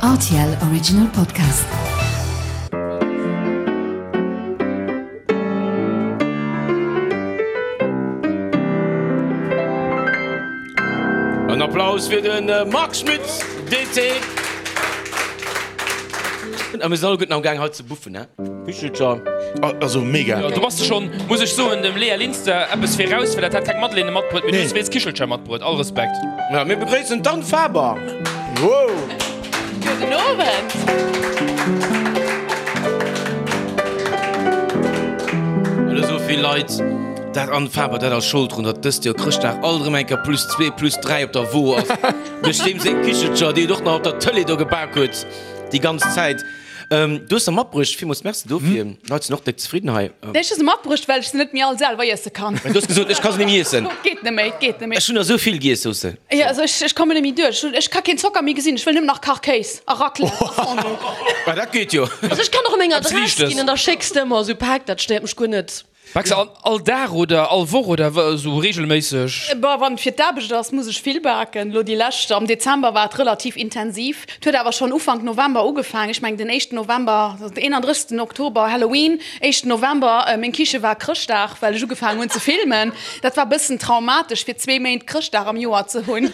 Rtl Original Podcast. En Applaus fir de Marc Schmitz, DT. A mir sinn alleguerten am Gaang hei ze buffen, he? Kichelcher. Also mega. Jo, do bass de schon, muss ech soen, dem Léa Linster eppes viraus, well dat hat keng Madeleine matbruet, mee du hues wéinst Kichelcher matbruet. All Respekt. Ja, mir begréissen d'Anne Faber. Wow! Gudden Owend. Well esou vill Leit dat Anne Faber, dat ass Schold drun, datt dëst Joer Chrëschtdag alt erëm eng Kéier plus zwee, plus dräi op der Wo ass. Duerch deem seng Kichelcher, déi et och nach op der Tëlee do gebak huet déi ganz Zäit. Du hues se matbruecht, villmools Merci dofir. D'Leit sinn och déck zefridden hei. Nee, ech hu se matbruecht, well ech se net méi all selwer iesse kann. Du hues gesot, ech ka se net méi iessen. Et geet net méi, et geet net méi. Ech hunn der esou vill giess, sous se. Jo, also ech, ech kommen net méi duerch. Ech ka keen Zocker méi gesinn, ech wëll nëmmen nach Kachkéis a Raclette a Fondue. Ma dat geet jo. Also ech kann och meng Eppes Adress Liichtes. ginn an da schécks de ëmmer esou Päck, dat stéiert mech guer net. Baks de all Dag oder all Woch oder esou reegelméisseg? Bah, wann et fir d'Aarbecht ass, muss ech vill baken. Elo déi lescht, am Dezember war et relativ intensiv. Et huet awer schonn Ufank November ugefaangen. Ech mengen den éischten November, also den 31. Oktober Halloween, éischten November, meng Kiche war Chrëschtdag, well ech ugefaangen hunn ze filmen. Dat war bëssen traumatesch fir zwee Méint Chrëschtdag am Joer ze hunn.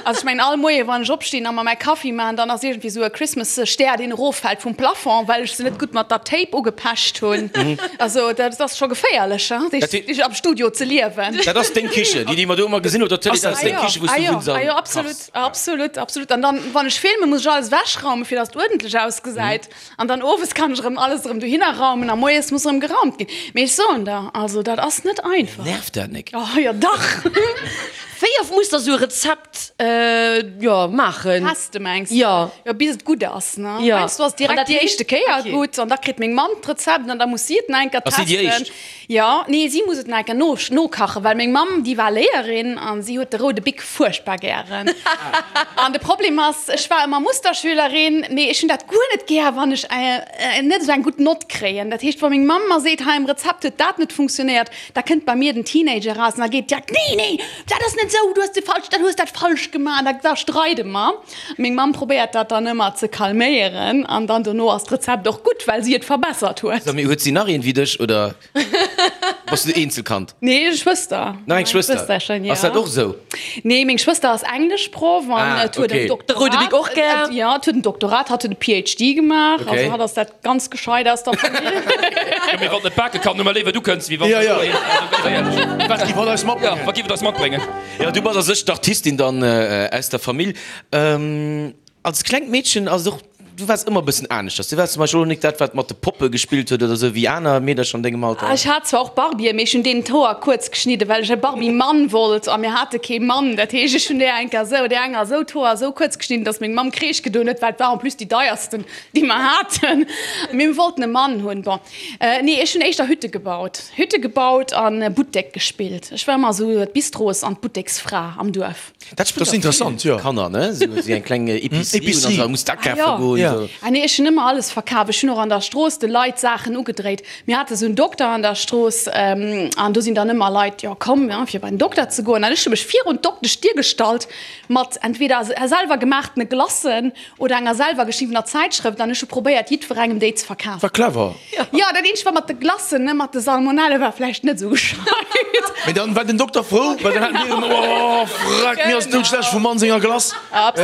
Also ech mengen all Moie wann ech opstinn a mer mäi Kaffi maachen, dann ass iergendwéi esou e Christmas Stär deen eroffält vum Plafond, well ech se net gutt mat der Tape ugepecht hunn. Also dat ass scho geféierlech hein, am Studio ze liewen. Dat ass deng Kiche, déi déi mer do ëmmer gesinn op der Tëlee, dat ass deng Kiche wou s du wunns an Ah jo, absolut, absolut, absolut. An dann wann ech filmen, muss ech alles ewechraumen, fir datt et uerdentlech ausgesäit. An dann owes kann ech erëm alles erëm dohinner raumen a moies muss erëm geraumt ginn. Mee ech soen der, also dat ass net einfach. Nervt dat nek? Oh jo dach! Wéi oft muss der sou e Rezept jo maachen? Teste mengs de? Jo. Jo bis et gutt ass ne? Jo. Heiansdo ass et An direkt dat déi heescht? éischte Kéier Okay. gutt an da kritt meng Mamm d'Rezept an da muss si et nach eng Kéier Ass si déi testen. éischt? Jo, nee si muss et nach eng Kéier no nokachen, well meng Mamm déi war Léierin an si huet de roude Bic fuerchtbar gären. An de Problem ass, ech war ëmmer Musterschülerin, mee ech hunn dat guer net gär, wann ech net esou eng gutt Nott kréien. Dat heescht, wa meng Mamm mer seet, hei am Rezept huet dat net funktionéiert, da kënnt bei mir den Teenager eraus an da geet direkt, nee, nee, dat ass net esou, du hues de falsch, dat hues dat falsch gemaach. An da, da streide mer. Meng Mamm probéiert dat dann ëmmer ze calméieren an dann dono ass d'Rezept och gutt, well si et verbessert huet. Sag, mee huet si nach een wéi dech oder? Bass du Eenzelkand? Nee, Schwëster. Nach eng Schwëster? Schwësterchen, ja. Ass dat och esou? Nee, meng Schwëster ass Engleschproff an Ah, et huet okay. en Doktorat. De roude Bic och gär? Ja, et huet en Doktorat, hatt huet e PhD gemaach. Okay. Also hatt ass dat ganz gescheit aus der Famill. Jo, mee wann et net bake kann, hu mer léiwer du kënns, wéi wann. Ja, ja. Also, Wat giff hatt eis matbréngen? Ja, wat giff et eis matbréngen? Ja, du bass a sech d'Artistin dann aus der Famill. Als klengt Meedchen ass et och, du waars ëmmer e bëssen aneschters. Du waars zum Beispill och nik dat, wat mat de Poppe gespillt huet oder esou wéi aner Meedercher an dengem Alter. Ech hat zwar och Barbien, mee ech hunn deenen d'Hoer kuerz geschnidden, well ech e Barbie-Mann wollt a mir hate kee Mann. Dat heescht, ech hunn där enker esou, där enger esou d'Hoer esou kuerz geschnidden, dass meng Mamm Kreesch gedoen huet, well et war en plus déi deiersten, déi mer haten. Mee mir wollten e Mann hunn. Bon, nee, ech hunn éischter Hütte gebaut, Hütte gebaut a Buttek gespillt. Ech war ëmmer esou d'Bistros an d'Butteksfra am Duerf. Dat spillt Das ist interessant, jo. Kanner, ne? Sou si eng kleng Epicerie hunn an da muss d'akafe Ah, jo. goen. Ja. Sou. Ah nee, ech hunn ëmmer alles verkaf. Ech hunn och an der Strooss de Leit Saachen ugedréit. Mir hate sou en Dokter an der Strooss an do sinn dann ëmmer Leit, jo komm, ja, fir bei den Dokter ze goen. An ech hu mech virun d'Dokteschdier gestallt mat entweder selwer gemaachtene Glacen oder enger selwer geschriwwener Zäitschrëft an ech hu probéiert jiddwerengem déi ze verkafen. War clever. Jo, dat eenzegt war mat de Glacen, ne, mat de Salmonelle war vläicht net esou gescheit. Mee dann war den Dokter frou, well dann haten déi erëm, oh freck, mir ass doudschlecht vum Mann senger Glace,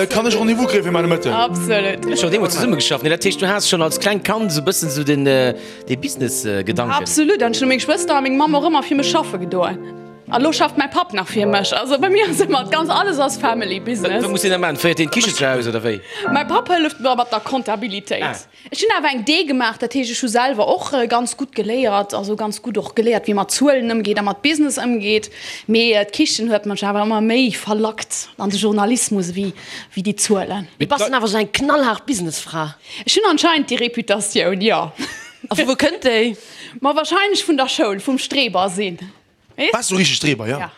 kann ech Rendez-vous kréie fir mäi Nomëtten? Absolut. Dir hutt schonn deemools zesumme geschafft, ne? Dat heescht, du has schonn als klengt Kand esou e bëssen esou den, dee Business-Gedanken? Absolut, an ech hu meng Schwëster a meng Mamm och ëmmer fir mech schaffe gedoen. A lo schafft mäi Papp nach fir mech. Also bei mir ass ëmmer ganz, alles ass Family Business. Wat muss deen da maachen? Féiert deen d'Kiche zu Haus oder wéi? Mäi Papp hëlleft mer mat der Comptabilitéit. Ah. Ech hunn awer eng D gemaach, dat heescht ech hu selwer och ganz gutt geléiert, also ganz gutt och geléiert wéi mat Zuelen ëmgeet a mat Business ëmgeet. Mee d'Kichen huet mech awer ëmmer méi verlackt an de Journalismus ewéi wéi déi Zuelen. Du bass dann awer sou eng knallhaart Businessfra. Ech hunn anscheinend déi Reputatioun, jo. A vu wou kënnt déi? Ma wahrscheinlech vun der Schoul, vum Streber sinn. Waars du richteg Streber, jo? Ja.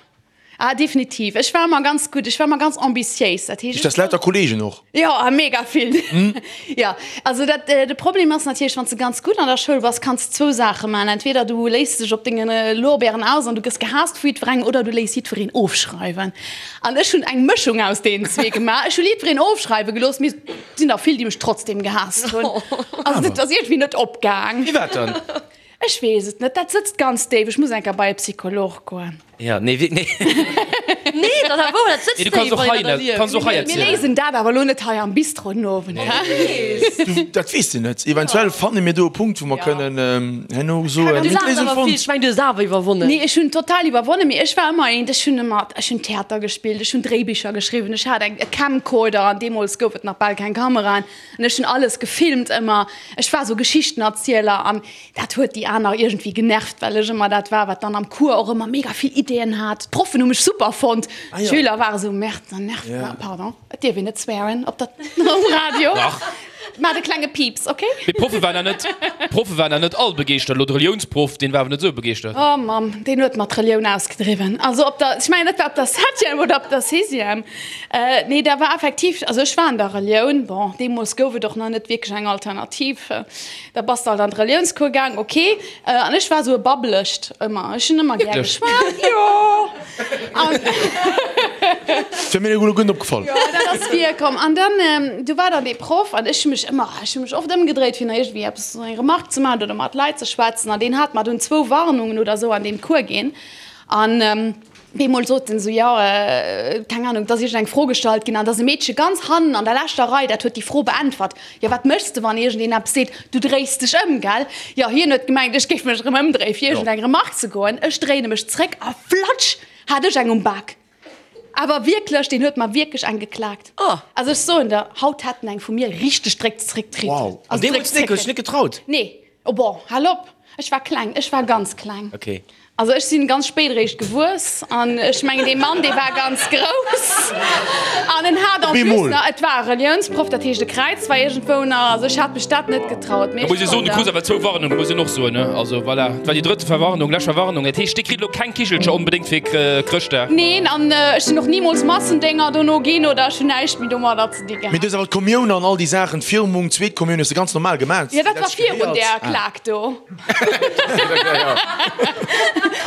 Ah, definitiv. Ech war ëmmer ganz gutt, ech war ëmmer ganz ambitiéis. Dat heescht, Ist das lauter Kollegen och? Jo, a mega vill. Jo, also dat, de Problem ass natierlech, wann s de ganz gutt an der Schoul bass, kanns de zwou Saache maachen, Entweder du léiss dech op denge Lorbeeren aus an du gëss gehaasst vu jiddwerengem oder du léiss jiddwereen ofschreiwen. An ech hunn eng Mëschung aus deenen zwee gemaach. Ech hu jiddwereen ofschreiwe gelooss, mee et sinn der vill, déi mech trotzdem gehaasst hunn. Also dat ass iergendwéi net opgaang. Firwat dann? Ech weess et net, dat sëtzt ganz déif. Ech muss eng Kéier bei e Psycholog goen. Ja, nee, wierk, nee. Nee, dat ass wouer, dat sëtzt Nee, du kanns déif, och wann hei een dat net, erlieft. kanns och hei Mir erzielen. léisen dat awer elo net hei am Bistro den Owend, hä? Du, dat weess de net. Eventuell fanne mir do e Punkt, wou mer Ja. kënnen herno soen, Du mir hunn laachs d'Léisung awer vill, fonnt. ech meng, du hues awer iwwerwonnen. Nee, ech hunn total iwwerwonnen, mee ech war ëmmer eent, ech hunn ëmmer, ech hunn Theater gespillt, ech hunn Dréibicher geschriwwen, ech hat eng, e Camcorder an deemools gouf et nach bal keng Kameraen an ech hunn alles gefilmt ëmmer. Ech war sou Geschichtenerzieler an Dat huet déi aner iergendwéi genervt, well ech ëmmer dat war, wat dann am Cours och ëmmer mega vill Ideeën hat. D'Proffen hu mech super fonnt, d'Schüler ware sou, Merde, dann nervt mer, pardon, et dierf een net swearen op der, um Radio. Dach. Maacht e klenge Piips, ok? Mee d'Proffe waren da net, d'Proffe waren da net all begeeschtert. Elo de Reliounsproff, deen war awer net esou begeeschtert. Oh Mamm, deen huet mer d'Relioun ausgedriwwen. Also op der, ech mengen, dat war op der Septième oder op der Sixième. Nee, da war effektiv, also ech war an der Relioun, bon, deemools gouf et och nach net wierklech eng Alternativ. Da bass de alt an d'Reliounscours gaang, ok. An ech war sou e Babbelecht ëmmer. Ech hunn ëmmer gär geschwat, jo. An. Wär mir elo guer net opgefall. Jo, dat ass virkomm. An dann, du war dann dee Proff an ech hu mech ëmmer, ech hu mech oft ëmgedréit, fir nach iergendwéi eppes, eng Remarque ze maachen oder mat Leit ze schwätzen. An deen hat mer dunn zwou Warnungen oder sou an deem Cours ginn. An. Bemol sot en esou, jo, keng Ahnung, et ass iergend eng Fro gestallt ginn an et ass e Meedche ganz hannen an der leschter Rei, dat huet déi Fro beäntwert. Jo, wat méchs de, wann iergendeen eppes seet? Du dréis dech ëm, gell? Jo, hien huet gemengt, ech géif mech erëm ëmdréien, fir iergend eng Remark ze goen. Ech dréine mech zréck a flatsch, hat ech eng um Bak. Awer wierklech, deen huet mer wierklech eng geklaakt. Also ech soen der, haut hätt en eng vu mir richteg dréck zréckkritt. Wow. An deemools net, hues dech net getraut? Nee. Oh bon, hal op! Ech war kleng, ech war ganz kleng. Okay. Also ech sinn ganz spéit eréischt gewuess an ech mengen dee Mann dee war ganz grouss an en hat en plus nach, et war e Reliounsproff, dat heescht e Kräiz war iergendwou nach, also ech hat mech dat net getraut. Da muss ee soen, du krus awer zwou Warnungen, muss een och soen, ne? Also voilà, et war déi drëtte Verwarnung, lescht Verwarnung. Dat heescht, dir kritt elo keng Kichelcher onbedéngt fir Chrëschtdag? Neen, an ech sinn och nimools Massendénger dono ginn oder ech hunn näischt méi domadder ze dinn Mee du hues awer d'Kommioun an all déi Saachen, d'Firmung, d'zweet Kommioun hues de ganz normal gemaach. Jo, dat war virun där Klak do.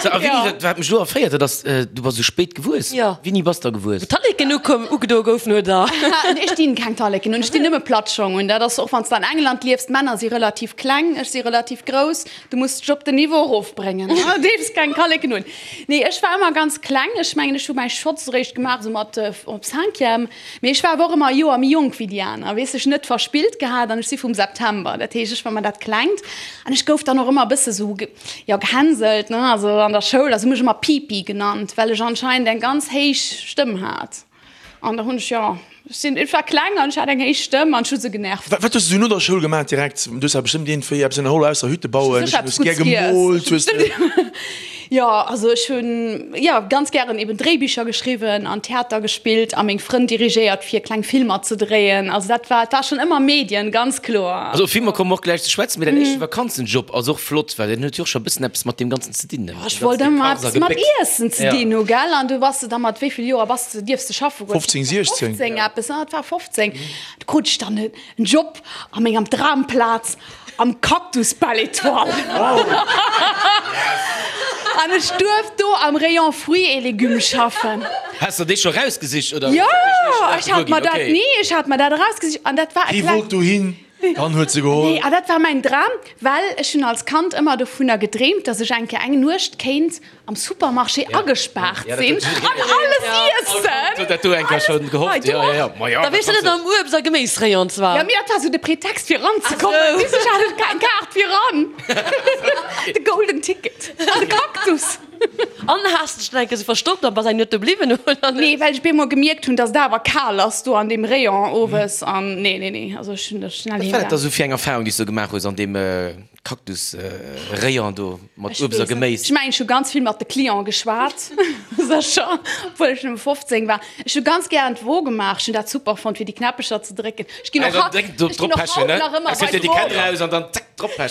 So, a Winnie, wat, wat mech elo erféiert, dat ass, du bass esou spéit gewuess. Jo. Wéini bass da gewuess? Wou d'Talleken ukoum, ugedoe goufen, oder? Ech dinn keng Talleken un, ech dinn nëmme Plattschong un. Dat ass och, wann s de an England liefs, d'Männer si relativ kleng, ech si relativ grouss, du muss dech op den Niveau erofbréngen, du deefs keng Talleken un. Nee, ech war ëmmer ganz kleng, ech mengen, ech hu mäi Schotz eréischt gemaach esou mat op Cinquième. Mee ech war awer och ëmmer e Joer méi jonk wéi déi aner, weess, ech net verspillt gehat an ech si vum September, dat heescht ech war ëmmer dat Klengt an ech gouf dann och ëmmer e bësse sou, jo, gehänselt, ne, also an der Schoul, also hu mech ëmmer Pipi genannt, well ech anscheinend eng ganz héich Stëmm hat an da hunn ech, jo, ech sinn, ech war kleng an ech hat eng héich Stëmm an ech hu se genervt. Wat hues du sou no der Schoul gemaach direkt? Du hues awer bestëmmt iergendwéi eppes ënnerholl ausser Hütte bauen, Ech hu hues gär gemoolt, hues de. Jo, also ech hunn jo ganz gären eben Dréibicher geschriwwen an Theater gespillt a meng Frënn dirigéiert fir kleng Filmer ze dréien. Also dat war, et war schonn ëmmer Medien, ganz kloer. Also op Filmer komme mer och gläich ze schwätzen, mee däin éischte Vakanzenjob ass och flott, well deen huet jo och scho e bëssen eppes mat deem Ganzen ze dinn, ne? Jo, ech wollt ëmmer eppes mat Iessen ze dinn hu, gell? An du bass de da mat wéi vill Joer bass de, dierfs de schaffe goen? 15, 16. 15 eppes, ne? Et war 15. Du krut ech dann en Job a mengem Dramplaz am Cactus Belle Etoile. An ech duerft do am Rayon Fruits et Légumes schaffen. Has de dee scho rausgesicht oder? Jo, ech hat mer dat, nee, ech hat mer dat erausgesicht an dat war e Hie kleng. wollt dohin, dann huet se geholl. Nee, a dat war mäin Dram, well ech hunn als Kand ëmmer dovunner gedreemt, dass ech eng Kéier eng Nuecht kéint am Supermarché agespaart sinn an alles iessen. Huet dat do eng Kéier schonn gehofft? Jo, jo, jo. Ma jo. Da wiers de net am Uebst a Geméisrayon zwar. Jo, mee dat war sou de Pretext fir eranzekommen. Weess ech hat eng Kaart fir eran. De golden Ticket an de Cactus. An has dech dann eng Kéier sou verstoppt a bass eng Nuet do bliwwen, oder net? Nee, well ech bemol gemierkt hunn, dass et awer kal ass do an deem Rayon owes an nee, nee, nee, also ech hunn da schnell Wat heem war dat da gaang. sou fir eng Erfahrung, déi s du gemaach hues an deem Cactus Rayon do mat Uebst a Geméis. Ech mengen ech hu ganz vill mat de Clienten geschwat, sécher, obwuel ech nëmme 15 war. Ech hu ganz gären d'Wo gemaach, ech hunn dat super fonnt fir déi Knäppecher ze drécken. Ech ginn och haut, ech ginn och haut nach ëmmer bei d'Wo.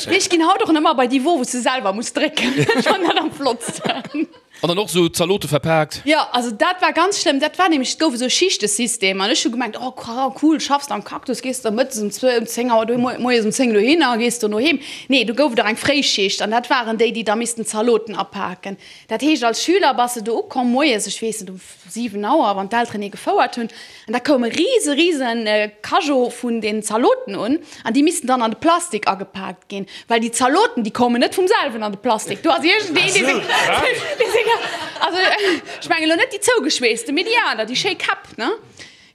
Nee, ech ginn haut och nach ëmmer bei déi Wo wou s de selwer muss drécken. Ech fannen dat am flottsten. An dann och sou Zalote verpaakt. Jo, also dat war ganz schlëmm. Dat war nämlech, et gouf esou e Schichtesystem an ech hu gemengt, oh cool, schaffs am Cactus, gees de mëttes um zwou, um 10 Auer do, moies um 10 dohinner a gees dono heem. Nee, do gouf et och eng Fréischicht an dat waren déi, déi da missten d'Zaloten apaken. Dat heescht, als Schüler bass de do ukomm moies, ech weess net, um 7 Auer, wann d'Elteren ee gefouert hunn, an da koum e rise, rise Cajot vun den Zaloten un, an déi missten dann an de Plastik agepaakt ginn, well déi Zaloten, déi koumen net vum selwen an de Plastik. Do ass iergendeen, dee seng, dee seng, also ech mengen elo net déi zougeschweesste, mee déi aner, déi schéi Käpp, ne?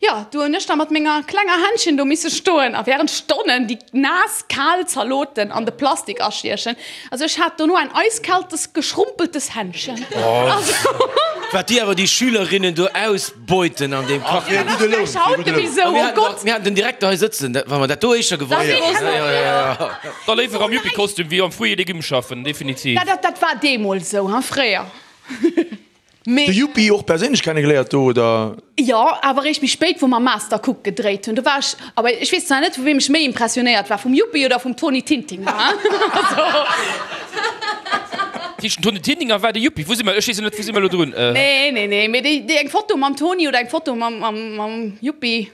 Jo, do hunn ech da mat menger klenger Händchen do misse stoen a während Stonnen déi naass, kal Zaloten an de Plastik astiechen. Also ech hat dono ein eiskaltes, geschrumpeltes Händchen. Also. Wat déi awer déi Schülerinnen do ausbeuten an deem Kach. Fir e gudde Loun, fir e gudde Loun. A mir haten den Direkter hei sëtzen, wa mer dat do éischter gewosst hätten. Da léiwer am Yuppie-Kostüm wéi am Fruits et Légumes schaffen, definitiv. Dat war deemools esou, hein, fréier. Mee. De Yuppi och perséinlech kennegeléiert do, oder? Jo, awer eréischt méi spéit, wou mer Master Cook gedréit hunn. Do war ech, awer ech weess zwar net, vu weem ech méi impressionéiert war, vum Yuppi oder vum Toni Tintinger, hein. Also. Tëscht dem Toni Tintinger war de Yuppi. Wou si mer? Ech weess jo net, wou si mer elo drun? Nee, nee, nee, mee déi, déi eng Foto mam Toni oder eng Foto mam, mam, mam Yuppi.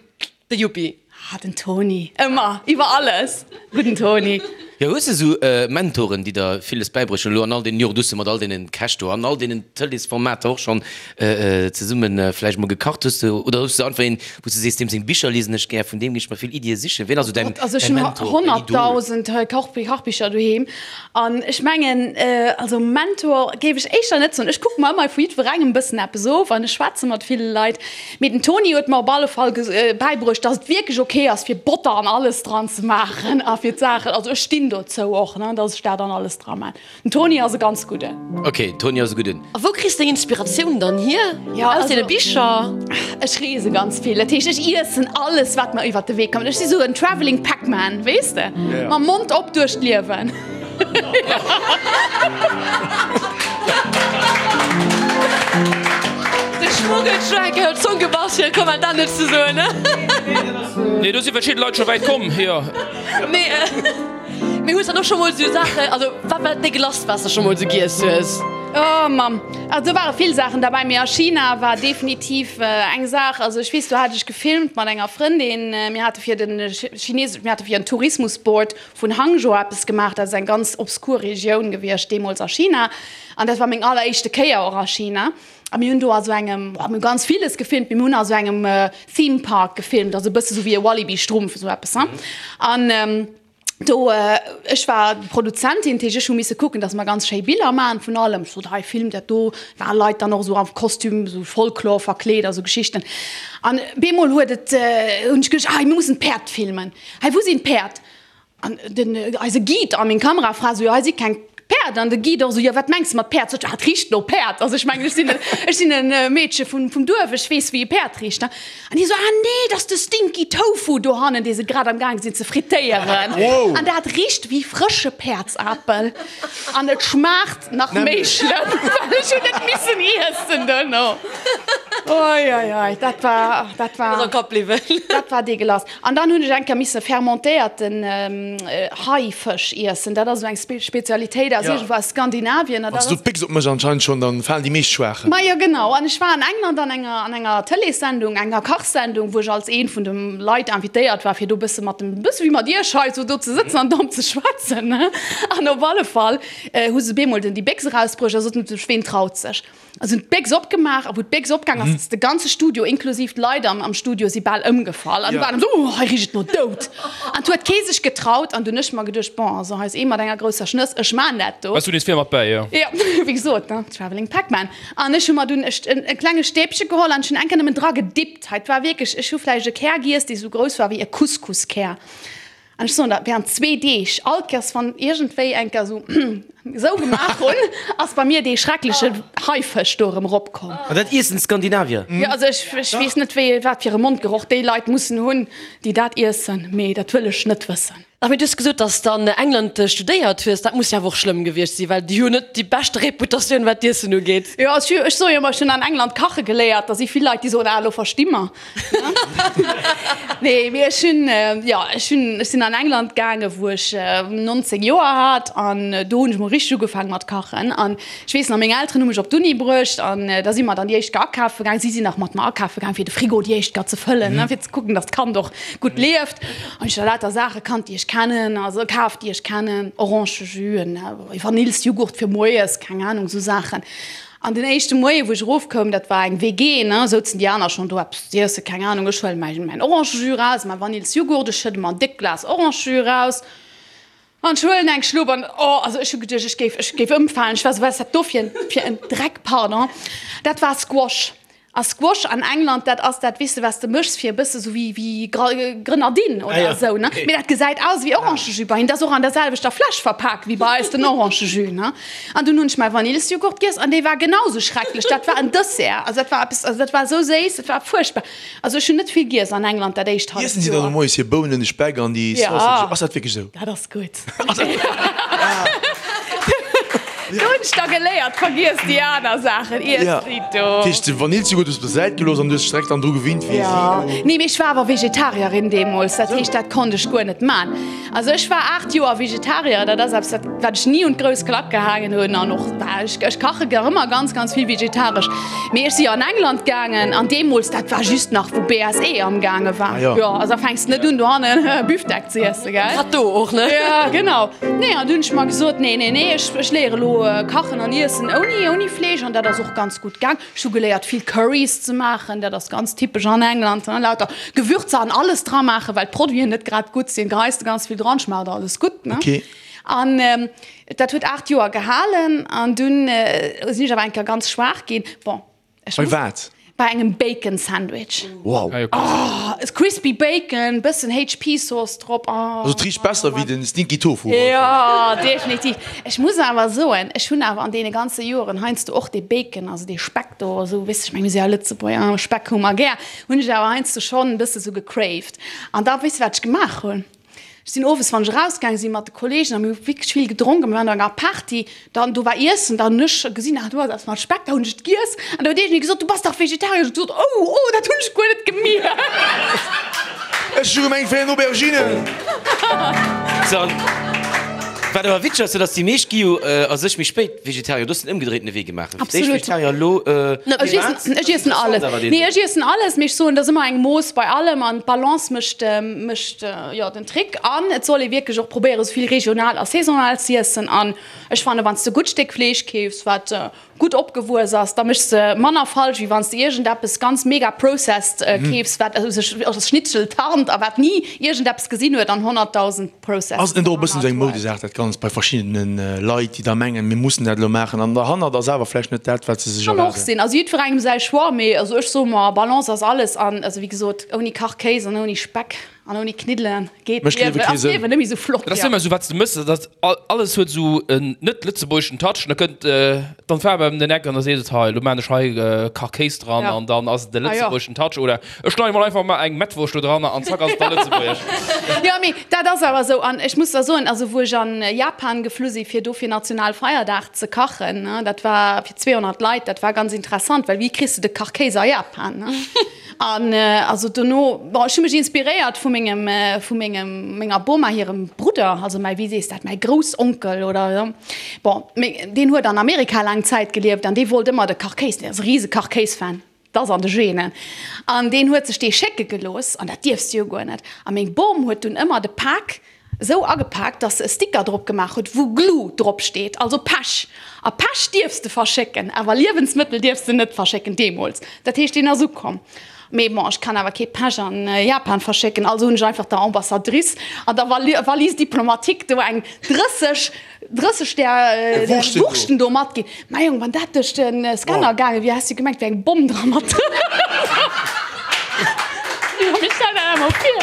De Yuppi. Ah, den Toni, ëmmer, iwwer alles, gudden Toni. Jo, hues de sou Mentoren, déi der villes bäibruecht hunn elo an all deenen Joren? Du hues jo mat all deenen Käch do an all deenen Tëleesformater och schonn zesumme vläicht mol gekacht. Hues de, oder hues de einfach een, wou s de sees, deem seng Bicher liesen ech gär, vun deem géing ech mer vill Iddie sichen? Wien ass sou däin Gott, also ech hunn Mentor, däin Idol? 100.000 Kachbicher doheem an ech mengen, also Mentor géif ech éischter net soen. Ech kucke mer ëmmer vu jiddwerengem e bëssen eppes of an ech schwätze mat ville Leit. Mee den Toni huet mer op alle Fall bäibruecht, dass et wierklech ok ass, fir Botter an alles dran ze maachen a fir d'Saachen, also ech stinn dozou och, ne, dass ech dat an alles dra maan. Den Toni ass e ganz gudden. Ok, den Toni ass e gudden. A wou kriss deng Inspiratioun dann hier? Ja, Aus deene Bicher? Ech reese ganz vill, dat heescht ech iessen alles wat mer iwwert de Wee kommt. Ech si sou en travelling Pac-Man, weess de, mam Mond op duerch d'Liewen. De Schmuggeltrack huet d'Zong gebass fir e Kommentar net ze soen. Nee, do si verschidde Leit scho wäit komm, jo. Mee, mee hues dann och scho mol sou Saachen, also wat war dat déguelasst wat s de scho mol sou giess hues? Oh Mamm, also do ware vill Saachen derbäi, mee a China war definitiv eng Saach, also ech weess, do hat ech gefilmt mat enger Frëndin, mir hate fir den Chines, mir hate fir en Tourismusboard vun Hangzhou eppes gemaach, dat ass eng ganz obskur Regioun gewiescht deemools a China an dat war meng alleréischte Kéier och a China a mir hunn do a sou engem, boah, mir hu ganz villes gefilmt, mee mir hunn a sou engem Theme Park gefilmt, also e bësse sou wéi e Walibi Strumpf, esou eppes, hein. An do, ech war Produzentin, dat heescht ech hu misse kucken, datt mer ganz schéi Biller maachen vun allem, ech sot, hei filmt dat do, ware Leit dann och esou am Kostüm, esou Folklor verkleet a sou Geschichten an bemol huet et, hunn ech geduecht, ah mir mussen d'Päerd filmen. Hei, wou sinn d'Päerd? An den, eise Guide a meng Kamerafra esou, jo, hei si keng Päerd. An de Guide och esou, jo, wat mengs de mat Päerd? Sot ech, ah, et richt no Päerd. Also ech mengen, ech sinn, ech sinn e Meedche vun, vum Duerf, ech weess, wéi e Päerd richt. An hie esou, ah nee, dat ass de Stinky Tofu dohannen, dee se grad am gaang sinn ze frittéieren. An dat richt wéi frësche Päerdsapel. An et schmaacht nach méi schlëmm, well ech hunn et missen iessen duerno. Oi, oi, oi, dat war, dat war, Ass am Kapp bliwwen. dat war deegelass. An dann hunn ech eng Kéier misse fermentéierten Haifësch iessen. Dat ass esou eng Spezialitéit aus iergendwou aus Skandinavien. Wann s du d'Béchs opméchs anscheinend schonn, dann falen déi meescht Schwaachen. Majo genau. An ech war an England an enger an enger Tëleessendung, enger Kachsendung, wou ech als een vun de Leit invitéiert war, fir do e bësse mat dem, e bësse wéi mat iech hei, esou do ze sëtzen an domm ze schwätzen. An op alle Fall hu se bemol den déi Béchs erausbruecht a soten, ween traut sech? A se hunn d'Béchs opgemaach, a wou d'Béchs opgaang ass, ass de ganze Studio, inklusiv d'Leit am am Studio, si bal ëmgefall. An du waren esou, Oh, hei richt et no Doud! An 't huet kee sech getraut. An dunn hunn ech mer geduecht, Bon, also hei ass ee mat enger grousser Schnëss, ech maan dat do. Waars du nees vir mat bäi, jo? Jo, wéi gesot, ne, Travelling Pac-Man. An ech hu mer dunn e e klenge Stäbche geholl an ech hunn eng Kéier nëmmen dra gedippt. Hei, 't war wierklech, ech hu vläicht e Kär giess, dee sou grouss war wéi e Couscouskär. An ech soen der, während zwee Deeg, all Kéiers wann iergendwéi eng Kéier esou esou gemaach hunn, ass bei mir dee schreckleche Haifësch do erëm eropkomm. An dat iessen d'Skandinavier? Jo, also ech, ech weess net, wéi, wat fir e Mondgeroch déi Leit mussen hunn, déi dat iessen, mee dat wëll ech net wëssen. Ach, mee du hues gesot, dass de an England studéiert hues. Dat muss jo awer och schlëmm gewiescht sinn, well déi hu net déi beschte Reputatioun, wat d'Iessen ugeet. Jo, ech ech soe jo ëmmer, ech hunn an England kache geléiert. Da si vill Leit, déi soen, ah, elo versti mer. Nee, mee ech hunn, jo, ech hunn, ech sinn an England gaangen, wou ech 19 Joer hat an do hunn ech mol richteg ugefaangen mat kachen. An ech weess nach, meng Elteren hu mech op d'Uni bruecht an da si mer dann déi éischt Kéier akafe gaangen. Si sinn nach mat mer akafe gaangen, fir de Frigo déi éischt Kéier ze fëllen, ne, fir ze kucken, dass d'Kand och gutt lieft. An ech hu lauter Saache kannt, déi ech kennen, also kaf, déi ech kennen, Orangejus, en Vanillsjughurt fir moies, keng Anung, esou Saachen. An den éischte Moie wou ech erofkoum, dat war eng WG, ne, souzen déi aner schonn do eppes z'iessen, keng Anung, ech huelen mäin mäin Orangejus raus, mäi Vanillsjughurt, ech schëdde mer en déckt Glas Orangejus raus an ech huelen eng Schlupp an, oh, also ech hu geduecht, ech géif, ech géif ëmfalen, ech war esou, wat ass dat do fir en, fir en Dreck, pardon, dat war Squash. A Squash an England, dat ass dat, weess de, wat s de méchs fir e bësse sou wéi, wéi Grenadine oder esou, ne? Mee dat gesäit aus wéi Orangejus bei hinnen. Dat ass och an der selwechter Fläsch verpak wéi bei eis den Orangejus, ne? An dunn hunn ech mäi Vanillsjoghurt giess an dee war genau sou schrecklech. Dat war en Dessert, also dat war eppes, also dat war esou séiss, dat war fuerchtbar. Also ech hunn net vill giess an England dat éischt halleft Iessen si dann Joer. moies hir Bounen, de Speck an déi Ja. Sausage? Ass dat wierklech esou? Dat ass gutt. Do hunn ech da geléiert, vergiess déi aner Saachen, iess déi do. Dat heescht, de Vanillsjoghurt hues du op der Säit gelooss an du hues dech direkt dann dru gewinnt, wéi si do. Nee, mee ech war awer Vegetarierin deemools, dat heescht, dat konnt ech guer net man. Also ech war 8 Joer Vegetarier, dat ass eppes, dat wat ech ni un d'grouss Klack gehaangen hunn an och ech, ech kache gär ëmmer ganz, ganz vill vegetaresch. Mee ech si an England gaangen an deemools, dat war just nach wou BSE amgaange war. Ah jo. Jo, also da fänks de net un dohannen Büfdeck ze iessen, gell? Grad do och, ne? Ja, genau. Nee, an du hunn ech mer gesot, nee, nee, nee, ech, ech léiere lo kachen an iessen ouni, ouni Fleesch an dat ass och ganz gutt gaang. Ech hu geléiert vill Currys ze maachen, dat ass ganz typesch an England, ne, lauter Gewürzer an alles dra maachen, well d'Produiten net grad gutt sinn, geheis de ganz vill dran, schmaacht alles gutt, ne. Okay. An dat huet 8 Joer gehalen an dunn sinn ech awer eng Kéier ganz schwaach ginn. Bon, ech Bei muss. wat? Bei engem Bacon Sandwich. Wow. Oh, crispy Bacon, bëssen HP Sauce drop. Oh. Also et richt besser wéi den Stinky Tofu. Jo, definitiv. Ech muss awer soen, ech hunn awer an deene ganze Joeren heiansdo och dee Bacon, also dee Speck do, esou, weess ech meng, mir si ja Lëtzebuerger, Speck hu mer gär, hunn ech awer heiansdo schonn e bësse sou gecraved. An da, weess de wat ech gemaach hunn? Ech sinn owes, wann ech erausgaange sinn mat de Kollegen, a mir hu wierklech vill gedronk a mir waren op enger Party, dann do war Iessen, dann hunn ech gesinn, ah do ass eppes mat Speck, da hunn ech et giess an da huet iergendee gesot, du bass dach Vegetarier. Ech hu gesot, oh, oh, dat hunn ech guer net gemierkt. Ech hu gemengt, et wär en Aubergine. Sou, an wat awer witzeg ass, dat ass, déi meescht gi jo a sech méi spéit Vegetarier. Du hues den ëmgedréitene Wee gemaach. Fir d'éischt Absolut. Vegetarier, elo Ech iessen, ech iessen alles. Nee, ech iessen alles, mee ech soen, et ass ëmmer eng Mooss bei allem an d'Balance mécht, mécht jo den Trick. An et soll ee wierklech och probéieren, esou vill regional a saisonal z'iessen. An ech fannen, wann s de gutt Stéck Fleesch keefs, wat gutt opgewuess ass, da méchs de manner falsch, wéi wann s de iergendeppes ganz mega processed keefs, wat sech als Schnitzel tarnt a wat ni iergendeppes gesinn huet an 100.000 Processes. Ass et net och e bëssen esou eng Moudesaach dat Ganzt bei verschiddene Leit, déi da mengen, mir mussen dat elo maachen an derhannert ass awer vläicht net dat, wat se sech Kann och erwaarden? sinn. Also jiddwerengem säi Choix, mee also ech soe mer, Balance ass alles an also wéi gesot, ouni Kachkéis an ouni Speck an ouni Kniddelen geet Mécht d'Liewe d'Liewen, kee ass Sënn. d'Liewen net méi esou flott. Dat ass ëmmer esou, wat s de mëss, dat alles huet esou en net-lëtzebuergeschen Touch an da kënnt dann d'Faarf ëm den Eck an da seet et, hei, elo maan ech hei Kachkéis dran an dann ass et de lëtzebuergeschen Touch oder Ech schneiden mol einfach mal eng Mettwurscht do dran an zack ass et da lëtzebuergesch. Jo mee dat ass awer esou an ech muss der soen, also wou ech an Japan geflu si fir do fir Nationalfeierdag ze kachen, ne, dat war fir 200 Leit, dat war ganz interessant, well wéi kriss de de Kachkéis a Japan, ne? An also dono, bon ech hu mech inspiréiert vu mengem, vu mengem, menger Boma hirem Brudder, also mäi, wéi sees dat, mäi Groussonkel oder jo, bon, mee deen huet an Amerika laang Zäit gelieft an dee wollt ëmmer de Kachkéis, deen ass e rise Kachkéis-Fan. 't ass an de Genen. An deen huet sech dee schécke gelooss, an dat dierfs de jo guer net. A meng Bom huet dunn ëmmer de Pak esou agepaakt, dass se e Sticker drop gemaach huet, wou Glue drop steet, also Pech. A Pech dierfs de verschécken, awer Liewensmëttel dierfs de net verschécken, deemools. Dat heescht, deen ass ukomm. Mee bon, ech kann awer kee Pech an Japan verschécken, also hunn ech einfach der Ambassadrice an der Valise diplomatique do eng 30 30 där Wurschten do matginn. Mäi Jong, wann dat duerch de Scanner gaange wier, häss du gemengt, wär eng Bomm dra mat dran. Jo, mee stell der dat emol vir.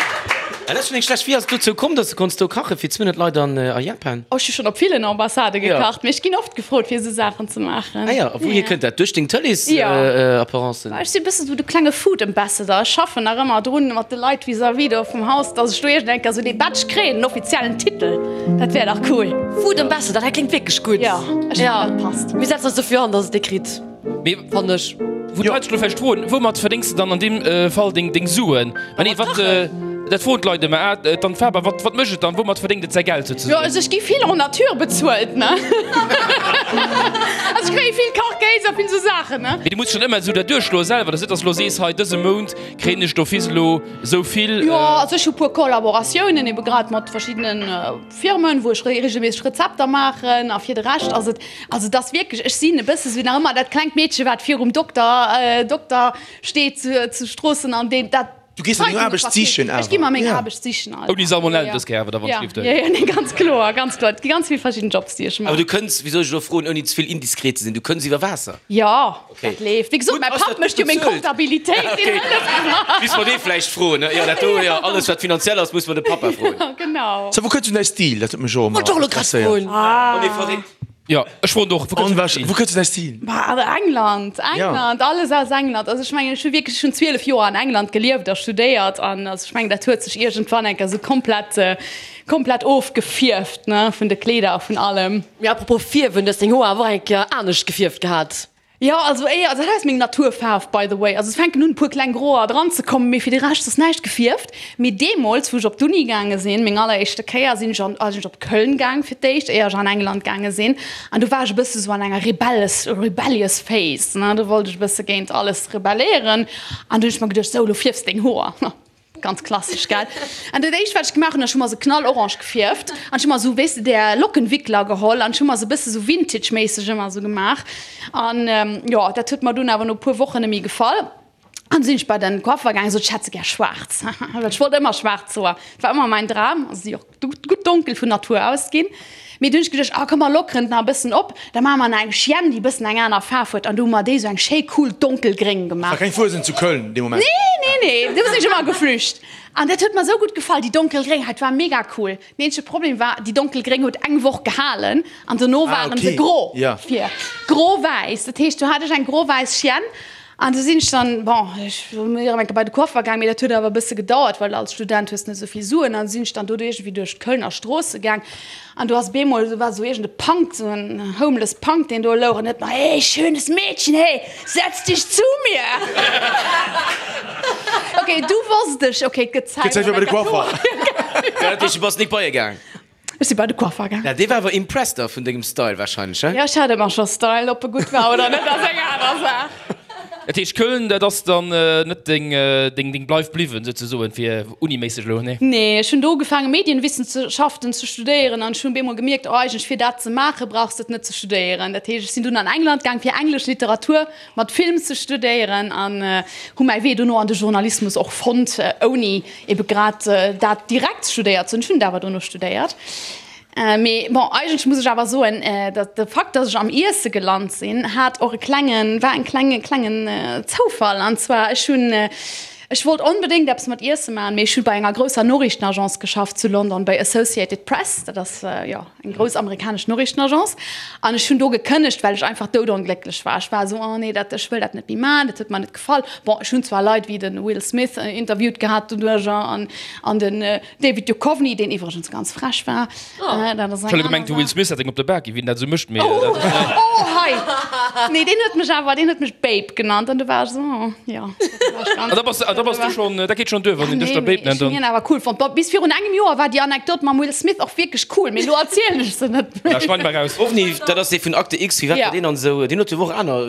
Dat ass schonn eng schlecht. Wéi ass et dozou komm, dass de konns do kache fir 200 Leit an a Japan? Oh, ech hu schonn op villen Ambassade gekacht, mee ech ginn oft gefrot fir esou Saachen ze maachen. Ah jo, a wouhier kënnt dat? Duerch deng Tëlees-Apparencen? Ech sinn e bëssen esou de klenge Food Ambassador. Ech schaffen nach ëmmer drun mat de Leit vis-à-vis do vum Haus, dass ech do iergend eng Kéier esou dee Badge kréien, den offiziellen Titel. Dat wär dach cool. Food Ambassador, dat kléngt wierklech gutt. Jo, ech fannen dat passt. Mir setzen eis dofir an, dass et dee kritt. Mee Fannen ech. Wou d'Leit sech elo vläicht froen, Woumat verdéngs de dann an deem Fall deng Suen? Mä nee, wat, dat froen d'Leit ëmmer, ah, d'Anne Faber, wat, wat mécht et dann, woumat verdéngt et säi Geld souzesoen? Jo, also ech gi vill en nature bezuelt, ne? Also ech kréie vill Kachkéis a vill esou Saachen, ne? Mee du muss schonn ëmmer esou dat duerchschloe selwer, dass net, dass de elo sees, hei dëse Mount kréien ech d'office elo esou vill. Jo, also ech hu puer Kollaboratiounen ebe grad mat verschiddenen Firmen, wou ech regelméisseg Rezepter maachen a fir de Rescht ass et, also et ass wierklech, ech sinn e bësse sou nach ëmmer dat klengt Meedche wat virum Dokter, Dokter steet zu zu Stroossen an deen dat Du gees der deng Aarbecht sichen awer? Ech gi mer meng Aarbecht sichen alt. Ouni Salmonellen dës Kéier awer da wann et leeft. Jo, jo, nee, ganz kloer, ganz kloer. Et gi ganz vill verschidden Jobs déi ech maachen. Awer du kënns, wéi soll ech elo froen ouni ze vill indiskret ze sinn, du kënns iwwer Waasser? Jo. Dat leeft. Wéi gesot, mäi Papp mécht jo meng Comptabilitéit, deen hëlleft mer. Misst mer dee vläicht froen, ne? Jo, dat do, jo, alles wat finanziell ass, muss mer de Pappa froen. Genau. So, wou kënnt du däi Stil? Dat huet mech och ëmmer interesséiert. Oh nee, verréckt. Jo, ech froen och, wou kënnt du däi Stil? Wou kënnt du däi Stil? Bah, England, England, alles aus England. Also ech mengen, ech hu wierklech, ech hunn 12 Joer an England gelieft a studéiert an also ech mengen, dat huet sech iergendwann eng Kéier esou komplett, komplett ofgefierft, ne, vun de Kleeder a vun allem. Mee apropos fierwen, du hues deng Hoer awer och eng Kéier anescht gefierft gehat. Jo, also éier, also dat ass meng Naturfaarf by the way. Also et fänken un e puer kleng Groer dran ze kommen, mee fir de Rescht ass näischt gefierft. Mee deemools wou ech op d'Uni gaange sinn, meng alleréischte Kéier, sinn ech an, sinn ech op Köln gaang fir d'éischt, éier ech an England gaange sinn. An do war ech e bësse sou an enger rebelles, rebellious phase, ne, do wollt ech e bësse géint alles rebelléieren. An du hunn ech mer geduecht, sou, elo fierfs deng Hoer. Ganz klassesch, gell? An dat éischt, wat ech gemaach hunn, ech hu mer se knallorange gefierft an ech hu mer esou, weess de, där Lockenwickler geholl an ech hu mer se e bësse sou vintage-méisseg ëmmer esou gemaach. An jo, dat huet mer dunn awer no e puer Wochen net méi gefall. An du sinn ech bei den Coiffer gaangen, sot ech hätt se gär schwaarz, well ech wollt ëmmer schwaarz Hoer, dat war ëmmer mäin Dram. Also si och gutt donkel vun Natur aus ginn. Mee du hunn ech geduecht, ah komm mer lockeren et nach e bëssen op, da maache mer nach eng Chienne, déi e bëssen eng aner Faarf huet. An du hu mer déi esou eng schéi cool donkelgréng gemaach. War keng Fuesent zu Köln dee Moment? Nee, nee, nee, do sinn ech ëmmer geflücht. An dat huet mer esou gutt gefall, déi donkelgréng, dat war mega cool. Den eenzege Problem war, déi donkelgréng huet eng Woch gehalen an dono waren se gro vir, gro-wäiss. Dat heescht, du hat ech eng gro-wäiss Chienne. An du sinn ech dann, bon, ech sinn erëm eng Kéier bei de Coiffer gaang, mee dat huet awer e bësse gedauert, well als Student hues de net esou vill Suen. An du sinn ech dann do iergendwéi duerch d'Kölner Stroosse gaang an do ass bemol, do war esou iergend e Punk, esou en homeless Punk, deen do louch an huet mer, Hey, schönes Mädchen, hey, setz dich zu mir! Ok, du wosst ech, ok, et gëtt Zäit fir bei de Coiffer. Dat heescht, du bass nik bei e gaang? Ech si bei de Coiffer gaang. Ja, dee war awer impressed da vun dengem Style wahrscheinlech, he? Jo, ech hat ëmmer scho Style, ob e gutt war oder net ass eng aner Saach. Dat heescht Köln, dat ass dann net deng, deng, deng Bleif bliwwen souzesoen, fir uniméisseg elo, nee? Nee, ech hunn do ugefaange Medienwissenschaften ze studéieren an ech hunn bemol gemierkt, oh eigentlech fir dat ze maache brauchs de et net ze studéieren. Dat heescht, ech sinn dunn an England gaang fir englesch Literatur mat Film ze studéieren an hu mäi Wee dono an de Journalismus och fonnt, ouni ebe grad dat direkt studéiert ze hunn. Ech hunn et awer dono studéiert. Mee bon, eigentlech muss ech awer soen, datt de Fakt, datt ech am Iesse gelant sinn, hat och e klengen, war en klenge klengen Zoufall. An zwar, ech hunn, ech wollt onbedéngt eppes mat Iesse maachen, mee ech hu bei enger grousser Noriichtenagence geschafft zu London, bei Associated Press, dat ass, jo, eng grouss amerikanesch Noriichtenagence, an ech hunn do gekënnegt, well ech einfach doudonglécklech war. Ech war esou, oh nee, dat, ech wëll dat net méi maachen, dat huet mer net gefall. Bon, ech hunn zwar Leit wéi de Will Smith interviewt gehat doduercher an, an den David Duchovny, deen iwwregens ganz frech war. Dat ass eng Ech hu gemengt, de Will Smith hätt eng op de Bak ginn, wéi en dat esou mécht, mee dat ass net. Oh, hei! Nee, deen huet mech awer, deen huet mech Babe genannt an du war ech esou, oh, jo. An da bass, da bass du schonn, dat geet schonn duer, wann een dech da Babe nennt. Ech hunn hien awer cool fonnt. Bon, bis virun engem Joer war déi Anekdot mam Will Smith och wierklech cool, mee elo erzielen ech se net méi. Schneid mer raus. Ovni, dat ass dee vun Akte X, wéi war deen an esou, deen huet jo och aner.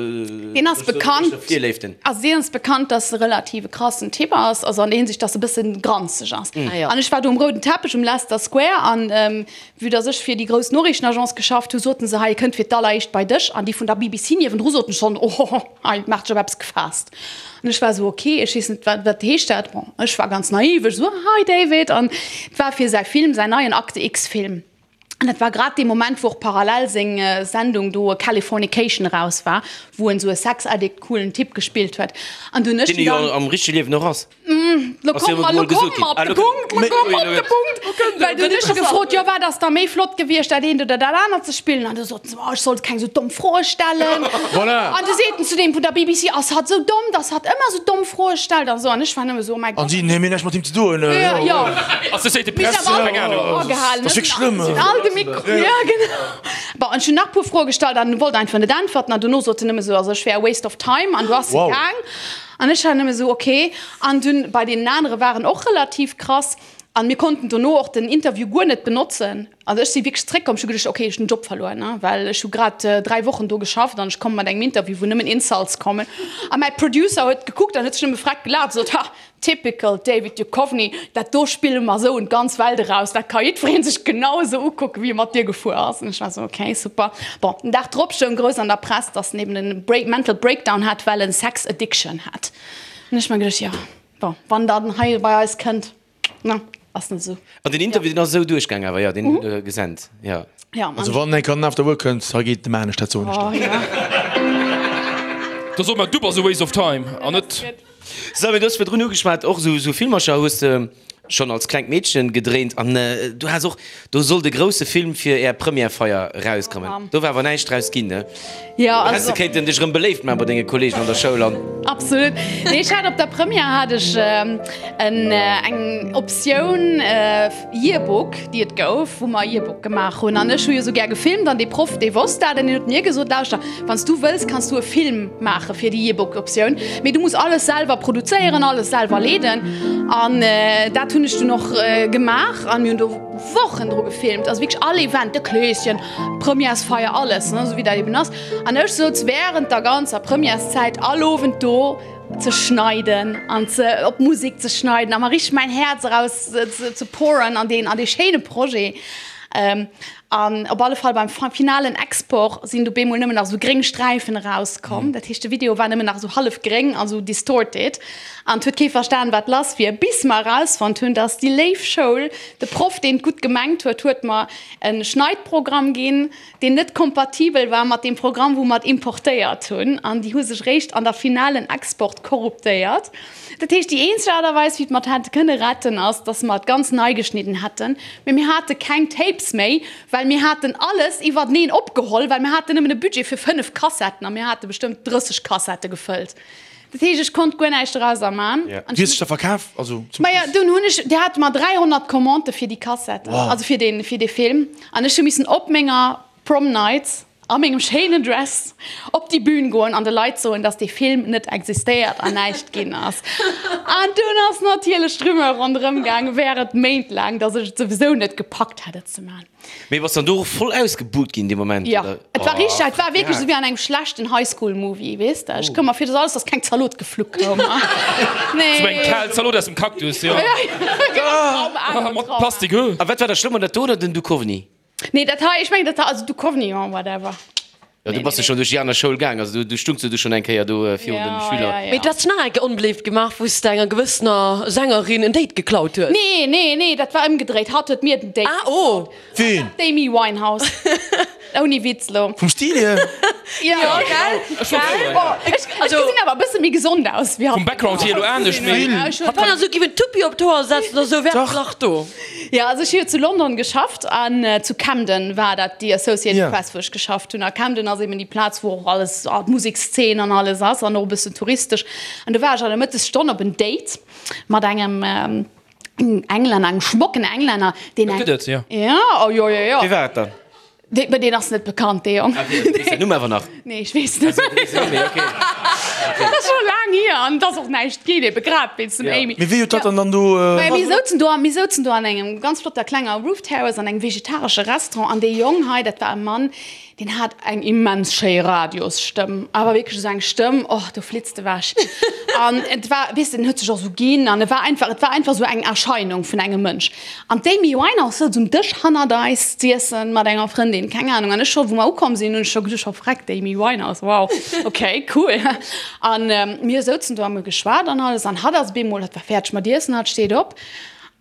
Deen ass bekannt, Virléiften. also deen ass bekannt, dass e relativ e krassen Typ ass, also an der Hinsicht, dass e bëssen granzeg ass. An ech war do um rouden Teppech um Leicester Square an vue dass ech fir déi grouss Noriichtenagence geschafft hu, soten se, hei e kënnt fir d'alleréischt bei dech. An déi vun der BBC niewendru soten schonn, ohoho, hei maacht sech op eppes gefaasst. An ech war esou, ok, ech weess net, wat, wat heescht dat? Bon, ech war ganz naiv, ech esou, hi David. An et war fir säi Film, säin neien Akte X-Film. An dat war grad dee Moment, wou och parallel seng Sendung do Californication eraus war, wou en esou e Sex-Addict coolen Typ gespillt huet. An du hunn ech Deen e jo am richtege Liewen och ass. Lo komme mer, lo komme mer op de Punkt, lo komme mer op de Punkt. Well du hunn ech gefrot, jo wat ass da méi flott gewiescht, dat eent oder dat anert ze spillen? An du soten se, oh ech sollt keng sou domm Froe stellen. Voilà. An du seet en zu deem vun der BBC, ass hatt sou domm, dass hatt ëmmer sou domm Froe stellt an sou. An ech war nëmme sou, oh mäi An Gott. si, nee mir hunn näischt mat him ze doen. Jo, jo. Associated Mir Press, sinn awer keng all Ahnung. agehalen, Dat ass wierklech schlëmm. Sinn all de Mikro, jo genau. Bon, ech hunn nach e puer Froe gestallt an en wollt einfach net äntwerten. An dono sot en nëmme sou, also ech wär a waste of time an du ass e Wow. gaang. An ech war nëmme sou, ok. An dunn bei deenen anere waren och relativ krass. An mir konnten dono och den Interview guer net benotzen. Also ech si wierklech zréckkomm, ech hu geduecht, ok, ech hunn den Job verluer, ne, well ech hu grad 3 Wochen do geschafft an ech komme mat engem Interview, wou nëmmen Insults kommen. A mäi Producer huet gekuckt an huet sech nëmme freck gelaacht a sot, Ha, typical David Duchovny, dat do spille mer esou un d'ganz Welt eraus, dat ka jiddweree sech genau esou ukucken, wéi e mat dir gefuer ass. An ech war esou, ok, super. Bon, den Dag drop stoung grouss an der Press, dass en eben en Break, Mental Breakdown hat, well en Sex Addiction hat. An ech mer geduecht, jo, bon, wann dann hei bei eis kënnt, ne, ass net esou. An den Interview, deen ass esou duerchgaang awer, jo, deen hutt Der gesent, jo. Ja, Also wann eng Kéier den After Work kënnt, hei geet dem anescht, dat soen ech der. Da soe mer, du bass a waste of time an net. Sou, mee du hues virdrun ugeschwat, och esou Filmercher hues de schonn als klengt Meedchen gedréint an du has och, do sollt e grousse Film fir är Premièrefeier erauskommen. Do war awer näischt draus ginn, ne? Jo, Do häss also. de kéinten dech erëm beléift maachen bei denge Kollegen an der Schoul an. Absolut. Nee, ech hat op der Première hat ech en eng Optioun Yearbook, déi et gouf, wou mer Yearbook gemaach hunn. An ech hu jo sou gär gefilmt an dee Proff, dee wosst dat an deen huet mir gesot, Lauschter, wann s du wëlls, kanns du e Film maache fir déi Yearbook-Optioun, mee du muss alles selwer produzéieren, alles selwer leeden. An dat hunn ech dunn och gemaach an mir hunn do Wochen dru gefilmt, also wierklech all Event, de Kleeschen, d'Premièresfeier, alles, ne, sou wéi dat eben ass. An ech souz wärend der ganzer Premièreszäit all Owend do, ze schneiden an ze op Musik ze schneiden a mer richteg mäin Häerz eraus ze pouren an deen an dee schéine Projet. An op alle Fall beim finalen Export sinn du bemol nëmmen nach esou gréng Sträifen erauskomm. Dat heescht de Video war nëmmen nach esou hallef gréng an esou distorted an et huet kee verstan wat lass wier, bis mer erausfonnt hunn, dass déi léif Schoul, de Proff deen et gutt gemengt huet, huet mer e Schneidprogramm ginn, deen net kompatibel war mat deem Programm wou mer et importéiert hunn, an déi hu sech réischt an der finalen Export korruptéiert. Dat heescht, déi eenzeg Aart a Weis wéi mer et hätte kënne retten ass, datt mer et ganz nei geschnidden hätten, mee mir hate keng Tapes méi, well mir haten alles iwwerteneen opgeholl, well mir haten nëmmen e Budget fir 5 Kassetten a mir hate bestëmmt 30 Kassette gefëllt. Dat heescht, ech konnt guer näischt dorauser man. An Wéi hues de da verkaf? Also zum Maja, dunn hunn ech, déi hate mer 300 Commandë fir déi Kassetten, Wow. also fir dee, fir dee Film. An ech hu missen op menger Prom Night a mengem schéinen Dress op déi Bühn goen an de Leit soen, dass dee Film net existéiert an näischt ginn ass. An dunn ass natierlech d'Rumeur ronderëm gaangen, während Méint laang, dass ech et souwisou net gepackt hätt, et ze man. Mee bass dann do och voll ausgebuht ginn dee Moment, Jo, oder? et war richteg, et war wierklech Oh, esou wéi an engem schlechten High-School-Movie, weess de. Ech koum mer vir, dass alles, dass keng Zalot gefluck koum. Nee. Sou eng kal Zalot aus dem Cactus, jo. Trauma, Mat Trauma. Plastik, huh? A wat war da schlëmmer, dat do oder den Duchovny? Nee, dat hei, ech mengen dat hei, also Duchovny, jo, whatever. Jo, du bass jo schonn duerch déi aner Schoul gaang, also du stungs jo du schonn eng Kéier do virun den Schüler. Mee du has dech nach eng Kéier onbeléift gemaach, wou s de enger gewëssener Sängerin en Date geklaut hues. Nee, nee, nee, dat war ëmgedréit. Hatt huet mir den Date Ah, oh. geklaut. Ween? D'Amy Winehouse. Ouni Witz lo. Vum Stil hier? Jo, gell? Gell? Oh, ech gesinn awer e bësse méi gesond aus wéi hatt. Vum Background hier elo anescht, mee. Wann der sou giff en Tuppi op d'Hoer setzen oder sou, wär et nach do. Jo, also ech hu jo zu London geschafft an zu Camden war dat déi Associated Ja. Press, wou ech geschafft hunn. A Camden ass eben déi Plaz, wou och alles, d'Musekszeen an alles ass an och e bëssen touristesch. An do war ech an der Mëttesstonn op en Date mat engem Englänner, engem schmocken Englänner, deen Dat eng. gëtt et, jo. Ja, oh jo, jo, jo. Wie war et dann? Dee, mä deen ass net bekannt, dee Jong. Ah, okay, du weess den Numm awer nach? Nee, ech weess net. Also, du weess den Numm méi, okay. Dat ass scho laang hier an et ass och näischt ginn, ebe grad wéinst dem Ja. Amy. Mee wéi huet dat dann dann do. Maja, mir souzen do, mir souzen do an engem ganz flotter klenger Roof Terrace an engem vegetaresche Restaurant an dee Jong hei, dat war e Mann, deen hat eng immens schéi Radiosstëmm, awer wierklech esou eng Stëmm, och do flitzt ewech. An et war, weess de, en huet sech och esou ginn an e war einfach, et war einfach esou eng Erscheinung vun engem Mënsch. An d'Amy Winehouse souz um Dësch hannert eis z'iessen mat enger Frëndin, keng Ahnung. An ech scho, wou mer ukomm sinn, hunn ech scho geduecht, oh freck, d'Amy Winehouse, wow, ok, cool. An mir souzen do a mir hu geschwat an alles. An hatt ass op eemol, hatt war fäerdeg mat iessen, hatt steet op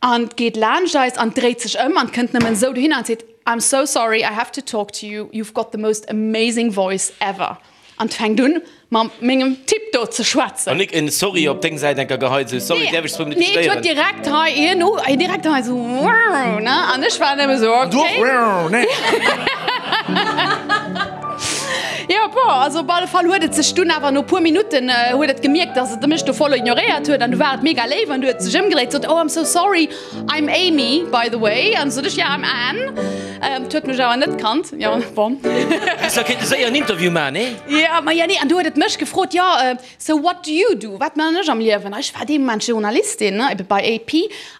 an geet laanscht eis an dréit sech ëm an kënnt nëmmen esou dohinner an seet, I'm so sorry, I have to talk to you, you've got the most amazing voice ever. An et fänkt un mam mengem Typ do ze schwätzen. An nik en Sorry op deng Säit enker geheit, sou Sorry, däerf ech zwou Minutte Nee, et stéieren? huet direkt hei hien u, direkt hei sou ne, an ech war nëmme sou An du och okay. nee. Jo, bon, also op alle Fall huet et sech dunn awer no puer Minutten huet et gemierkt, dass et mech do voll ignoréiert huet an du war et mega léif an du huet sech ëmgedréit, sot oh I'm so sorry, I'm Amy by the way an sot ech ja I'm Anne. Et huet mech awer net kannt, jo bon. Häss da kéinte séier en Interview man, nee? Jo, ma jo nee, an du huet et mech gefrot, jo so what do you do, wat man ech am Liewen? A ech war dee Moment Journalistin, ne, ebe bei AP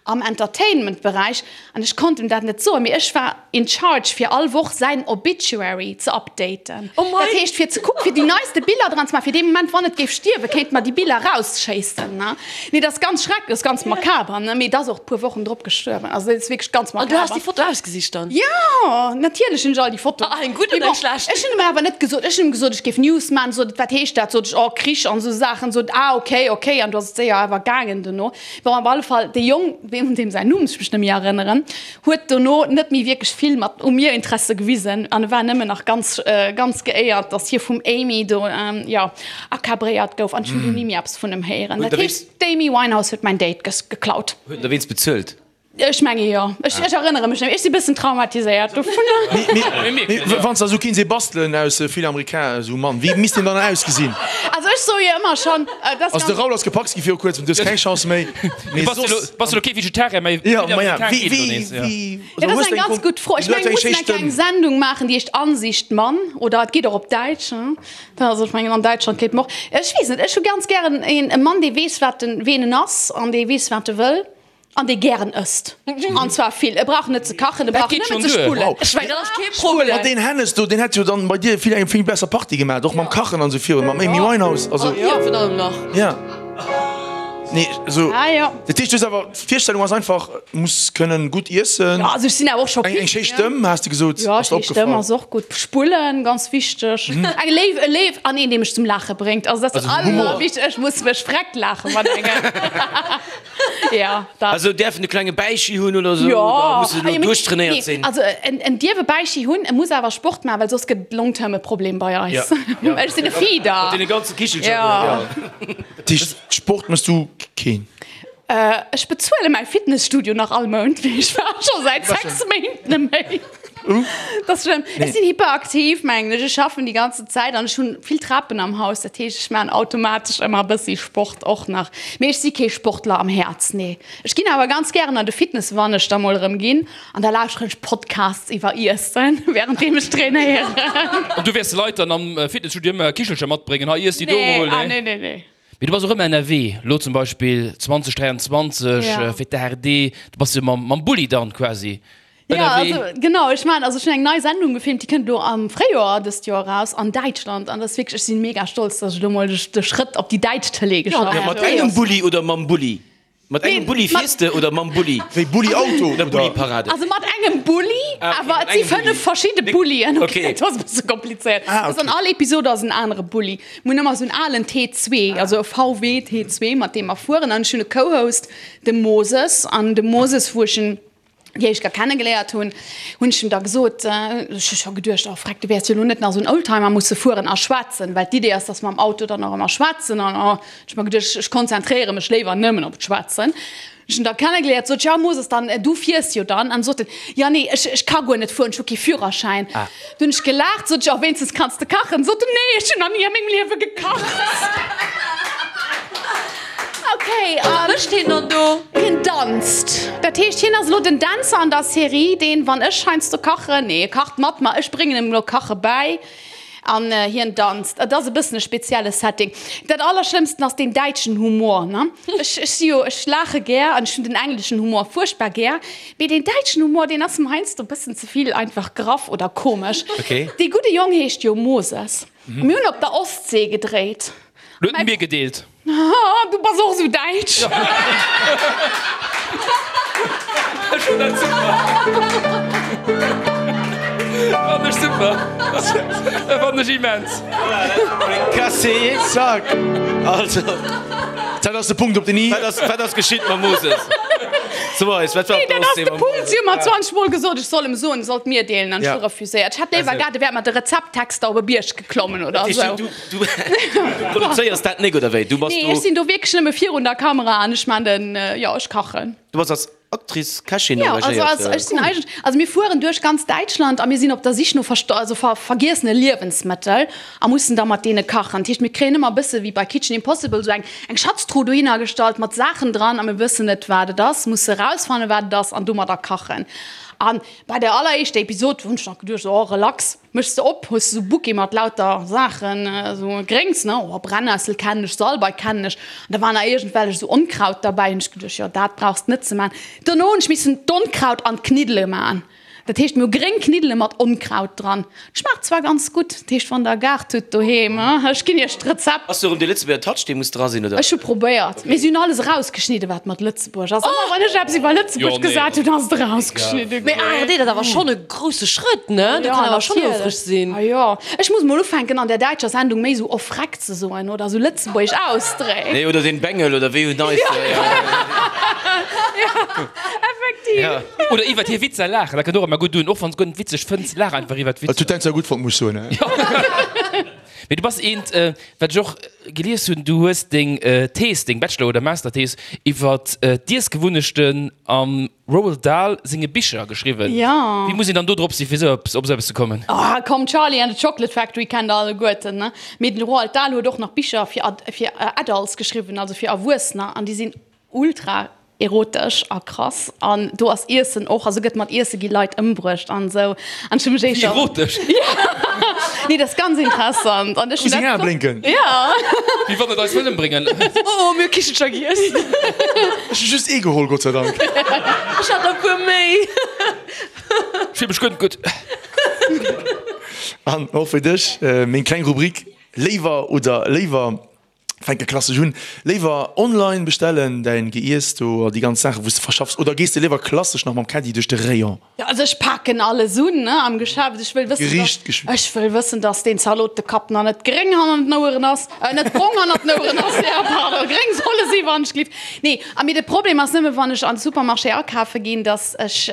am Entertainment-Beräich an ech konnt em dat net soen, mee ech war in charge fir all Woch säin Obituary ze updaten. Oh mei! Dat heescht fir ze kucken, fir déi neiste Biller dran ze maachen, fir dee Moment wann et géif stierwen, kéinte mer déi Biller rausschéissen, ne. Nee, dat ass ganz schrecklech, dat ass ganz makaber, ne? Mee et ass och e puer Wochen drop gestuerwen. Also dat ass wierklech ganz An du has makaber. déi Foto ausgesicht dann? Jo, natierlech hunn ech all déi Fotoen. Ah, eng gutt Mee oder eng bon, schlecht? ech hunn em awer net gesot, ech hunn em gesot, ech géif News maachen. Sot et, wat heescht dat? Sot ech, oh, Krich an esou Saachen. Sot et, ah, okay, okay. An du ass et séier awer gaangen dono. Bon, op alle Fall, dee Jong, un deem säin Numm ech mech net méi erënneren, huet dono net méi wierklech vill mat u mir Interesse gewisen an e war nëmmen nach ganz, ganz geéiert, dass hie vum Amy do, jo, akabréiert gouf an ech hunn du ni méi eppes vun em héieren. Dat heescht, d'Amy Winehouse huet mäin Date geklaut. Huet en der wéinst bezuelt? Ech menge jo. Ech, ech erënnere mech net méi. Ech si bëssen traumatiséiert dovunner. Mee wann s de esou kéints ee bastelen aus vill Amerikaner, esou Mann, wéi misst deen dann ausgesinn? Also ech soe jo ëmmer schonn, dat ass Also de ganz. Raoul ass gepackt gi viru kuerzem, du hues keng Chance méi. Mee Bass de soss. lo, bass de lo kee Vegetarier méi? Jo, Vill ma ja, Amerikaner wéi, geet elo wéi, nees, ja. wéi, Ja, also dat ass hues eng de eng ganz Kon, gutt Fro. Ech du hätt mengen, eng mir schéi mussen eng Stëmm. kleng Sendung maachen, déi heescht Ansicht Mann, oder et geet och op Däitsch, hein. Da, also ech mengen, an Däitschland kéint mer och, ech weess net, ech hu ganz gären een, e Mann, dee weess, wat en, ween en ass an dee weess, wat e wëll. An dee gären ësst. An zwar vill. E brauch net ze kachen, e brauch nëmmen ze spullen. Wow. Ech mengen, dat ass kee Problem. Ma deen Hennes do, deen hätt jo dann bei dir vill eng vill besser Party gemaat, och mam Kachen an sou virun, mam Amy Winehouse, also. An dir virun allem nach. Ja. Nee, also. Ah jo. Dat heescht, du hues awer, d'Virstellung ass einfach, muss kënnen gutt iessen. Jo, also ech sinn awer och scho Eng, eng picky, schéi ne? Stëmm, has de gesot, Jo, ass der schéi Stëmm opgefall. ass och gutt. Spullen, ganz wichteg. Eng léif, e léif an een, dee mech zum Laache bréngt. Also dat ass Also Humor. allerwichtegst. Ech muss mech vreckt laache mat engem. Ja, dat. Also däerf en e klenge Bäichi hunn oder sou? Jo. Oder muss en Ah, jo, mee duerchtrainéiert nee, sinn? Also en, en dierf e Bäichi hunn, e muss awer Sport maachen, well soss gëtt et long term e Problem bei eis. Ja. Ech sinn e Feeder. Mat deene ganze Kichelcher do, Ja. ja. Dat heescht, Sport méchs du keen? Ech bezuele mäi Fitnesstudio nach all Mount, mee ech war scho säit 6 Méint net méi. Dat ass schlëmm. Ech sinn hyperaktiv, mengen ech. Ech schaffen déi ganze Zäit an ech hunn vill Trapen am Haus. Dat heescht, ech maachen automatesch ëmmer e bëssi Sport och nach. Mee ech si kee Sportler am Häerz, nee. Ech ginn awer ganz gären an de Fitness, wann ech da mol erëm ginn. An da lauschteren ech Podcasts iwwer Iessen, wärenddeem ech trainéieren. An du wäers de Leit dann am Fitnesstudio ëmmer Kichelcher matbréngen, hei iess déi do Nee, mol, ah nee? nee, nee, nee. Mee du bass och ëmmer ënnerwee, lo zum Beispill 2023 fir d'ARD, du bass jo mam mam Bulli dann quasi Ja, ënnerwee. also genau, ech maan, also ech hunn eng nei Sendung gefilmt, déi kënnt elo am Fréijoer dëst Joer eraus an Däitschland an dat ass wierklech, ech sinn mega stolz, dass ech elo mol de Schrëtt op déi däitsch Tëlee geschafft Ja, hunn. mat engem Bulli oder mam Bulli? Mat engem Nee, Bulli mat- fiers de oder mam Bulli? Wéi Bulli-Auto Oder oder? Bulli-Parade? Also mat engem Bulli, Ah, okay, awer mat et si engem Bulli. 5 verschidde Bullien. Okay. Okay, dat ass e bësse komplizéiert. Ah, Also an okay. all Episode ass en anere Bulli. Mir hunn ëmmer esou en alen T2, also e VW T2, mat deem mer fueren. An ech hunn e Co-Host, de Moses. An de Moses, wou ech en déi éischt Kéier kennegeléiert hunn, hunn ech em da gesot, ech hu scho geduecht, oh freck, du wäers jo elo net nach esou en Oldtimer musse fueren a schwätzen, well d'Idee ass, dass mer am Auto dann och ëmmer schwätzen. An oh, ech hu mer geduecht, ech konzentréiere mech léiwer nëmmen op d'Schwätzen. Ech hunn da kennegeléiert, sot ech, ja Moses, dann, du fiers jo dann. An sot en, ja nee, ech, ech ka guer net fueren, ech hu kee Führerschäin. Du hunn ech gelaacht, sot ech, oh wéinstens kanns de kachen. Sot en, nee, ech hunn nach ni a mengem Liewe gekacht. Ok, Wat mécht hien dann do? Hien danzt. Dat heescht, hien ass elo den Dänzer an der Serie, deen, wann ech heiansdo kachen, nee, e kacht mat mer, ech bréngen em elo Kache bäi an hien danzt. Et ass e bëssen e spezielle Setting. Dat Allerschlëmmsten ass deen däitschen Humor, ne? Ech, ech si jo, ech laache gär an ech hunn den engleschen Humor fuerchtbar gär, mee deen däitschen Humor, deen ass mer heiansdo e bëssen ze vill einfach graff oder komesch. Dee gudde Jong heescht jo Moses. Mir hunn op der Ostsee gedréit. Lo huet en mir gedeelt. Haha, du bass och sou däitsch. Ech fann dat super. Fann ech super. Fann ech immens. Cassé. Zack. Also. Dat ass de Punkt op den i. Wat ass, wat ass geschitt mam Moses? So eis, wat war Nee, dat ass de Punkt. Si hu mer 20 Mol gesot, ech soll em soen, e sollt mir deelen, an ech hu refuséiert. Ech hätt léiwer gehat, e wär mat de Rezepttexter op e Bierg geklommen oder esou. Du, du, du produzéiers dat nik, oder wéi? Du bass Nee, do. ech sinn do wierklech nëmme virun der Kamera an ech man den, jo, ech kachen. Du bass als Actrice, Kächin Ja, also, engagéiert. also ech sinn eigentlech, also mir fueren duerch ganz Däitschland a mir sinn op der Sich no versto also ver vergiessene Liewensmëttel a mussen da mat deene kachen. Dat heescht, mir kréien ëmmer e bësse wéi bei Kitchen Impossible esou eng eng Schatztruh dohinner gestallt mat Saachen dran a mir wëssen net, wat et ass, musse erausfannen, wat et ass an domadder kachen. An bei der alleréischter Episod hunn ech nach geduecht, oh relax, Méchs de op, hues de sou Bouquet mat lauter Saachen, sou Gréngs, ne, oh Brennessel kennen ech, Salbei kennen ech, an da war nach iergendwellech sou Onkraut derbäi, hunn ech geduecht, jo dat brauchs de net ze man. Dono hunn ech missen d'Onkraut an d'Kniddele man, dat heescht mir hu gréng Kniddele mat Onkraut dran, schmaacht zwar ganz gutt, dat heescht wann der e Gaart hutt doheem, ech ginn iech d'Rezept. Ass do erëm dee Lëtzebuerger Touch dee muss dra sinn, oder? Ech hu probéiert, mee si hunn alles erausgeschnidden wat mat Lëtzebuerg ass. Ëmmer wann ech eppes iwwer Lëtzebuerg gesat hunn, ass et erausgeschnidde Mee ginn. ARD, dat ass awer schonn e grousse Schrëtt, ne? Do kann awer schonn houfreg sinn. Ah jo, ech muss mol ufänken an der däitscher Sendung méi sou off Freck ze soen oder sou lëtzebuergesch ausdrécken. Nee, oder den Bengel oder wéi hun eis. Effektiv. Oder iwwert hir Witzer laachen, dat kënnt och ëmmer gutt un, och wann s guer net witzeg fënns, laach einfach iwwert Dat huet d'Witzer. dein zwar gutt fonnt, muss ech soen. Mee du bass eent, wat ech och gelies hunn, du hues deng Thees, deng Bachelor oder Masterthees iwwert d'Iessgewunnechten am Roald Dahl senge Bicher geschriwwen. Jo. Wéi muss een dann do drop sinn, fir esou eppes, op esou eppes ze kommen? Oh komm, Charlie and the Chocolate Factory kennt der alleguerten, ne? Mee den Roald Dahl huet och nach Bicher fir fir Adults geschriwwen, also fir Erwuessener, an déi sinn ultra erotesch a krass. An do ass Iessen och, also gëtt mat Iesse gi Leit ëmbruecht an esou. An ech hu mech éischter. Erotesch? Nee, dat ass ganz interessant. An ech Muss hunn seng dat Ae blénken. Ja. Wéi wann et eis wëll ëmbréngen. Oh, mir hu Kichelcher giess. Ech hu just ee geholl, Gott sei Dank. Ech hat der e puer méi. Ech fill mech guer net gutt. An och fir dech meng kleng Rubrik Léiwer oder léiwer. Fänke klassesch un, léiwer online bestellen däin Geiess do a déi ganz Saachen wou s de verschaffs oder gees de léiwer klassesch nach mam Caddie duerch de Rayon? Jo, also ech paken alles un, ne, am Geschäft. Ech wëll wëssen, Gericht dass, ech wëll wëssen, dass deen Zalotekapp nach net gréng hannert den Oueren ass, äh, net brong hannert den Oueren ass, jo, pardon, gréng soll e si wann ech glift. Nee, a mee de Problem ass nëmme wann ech an de Supermarché akafe ginn, dass ech,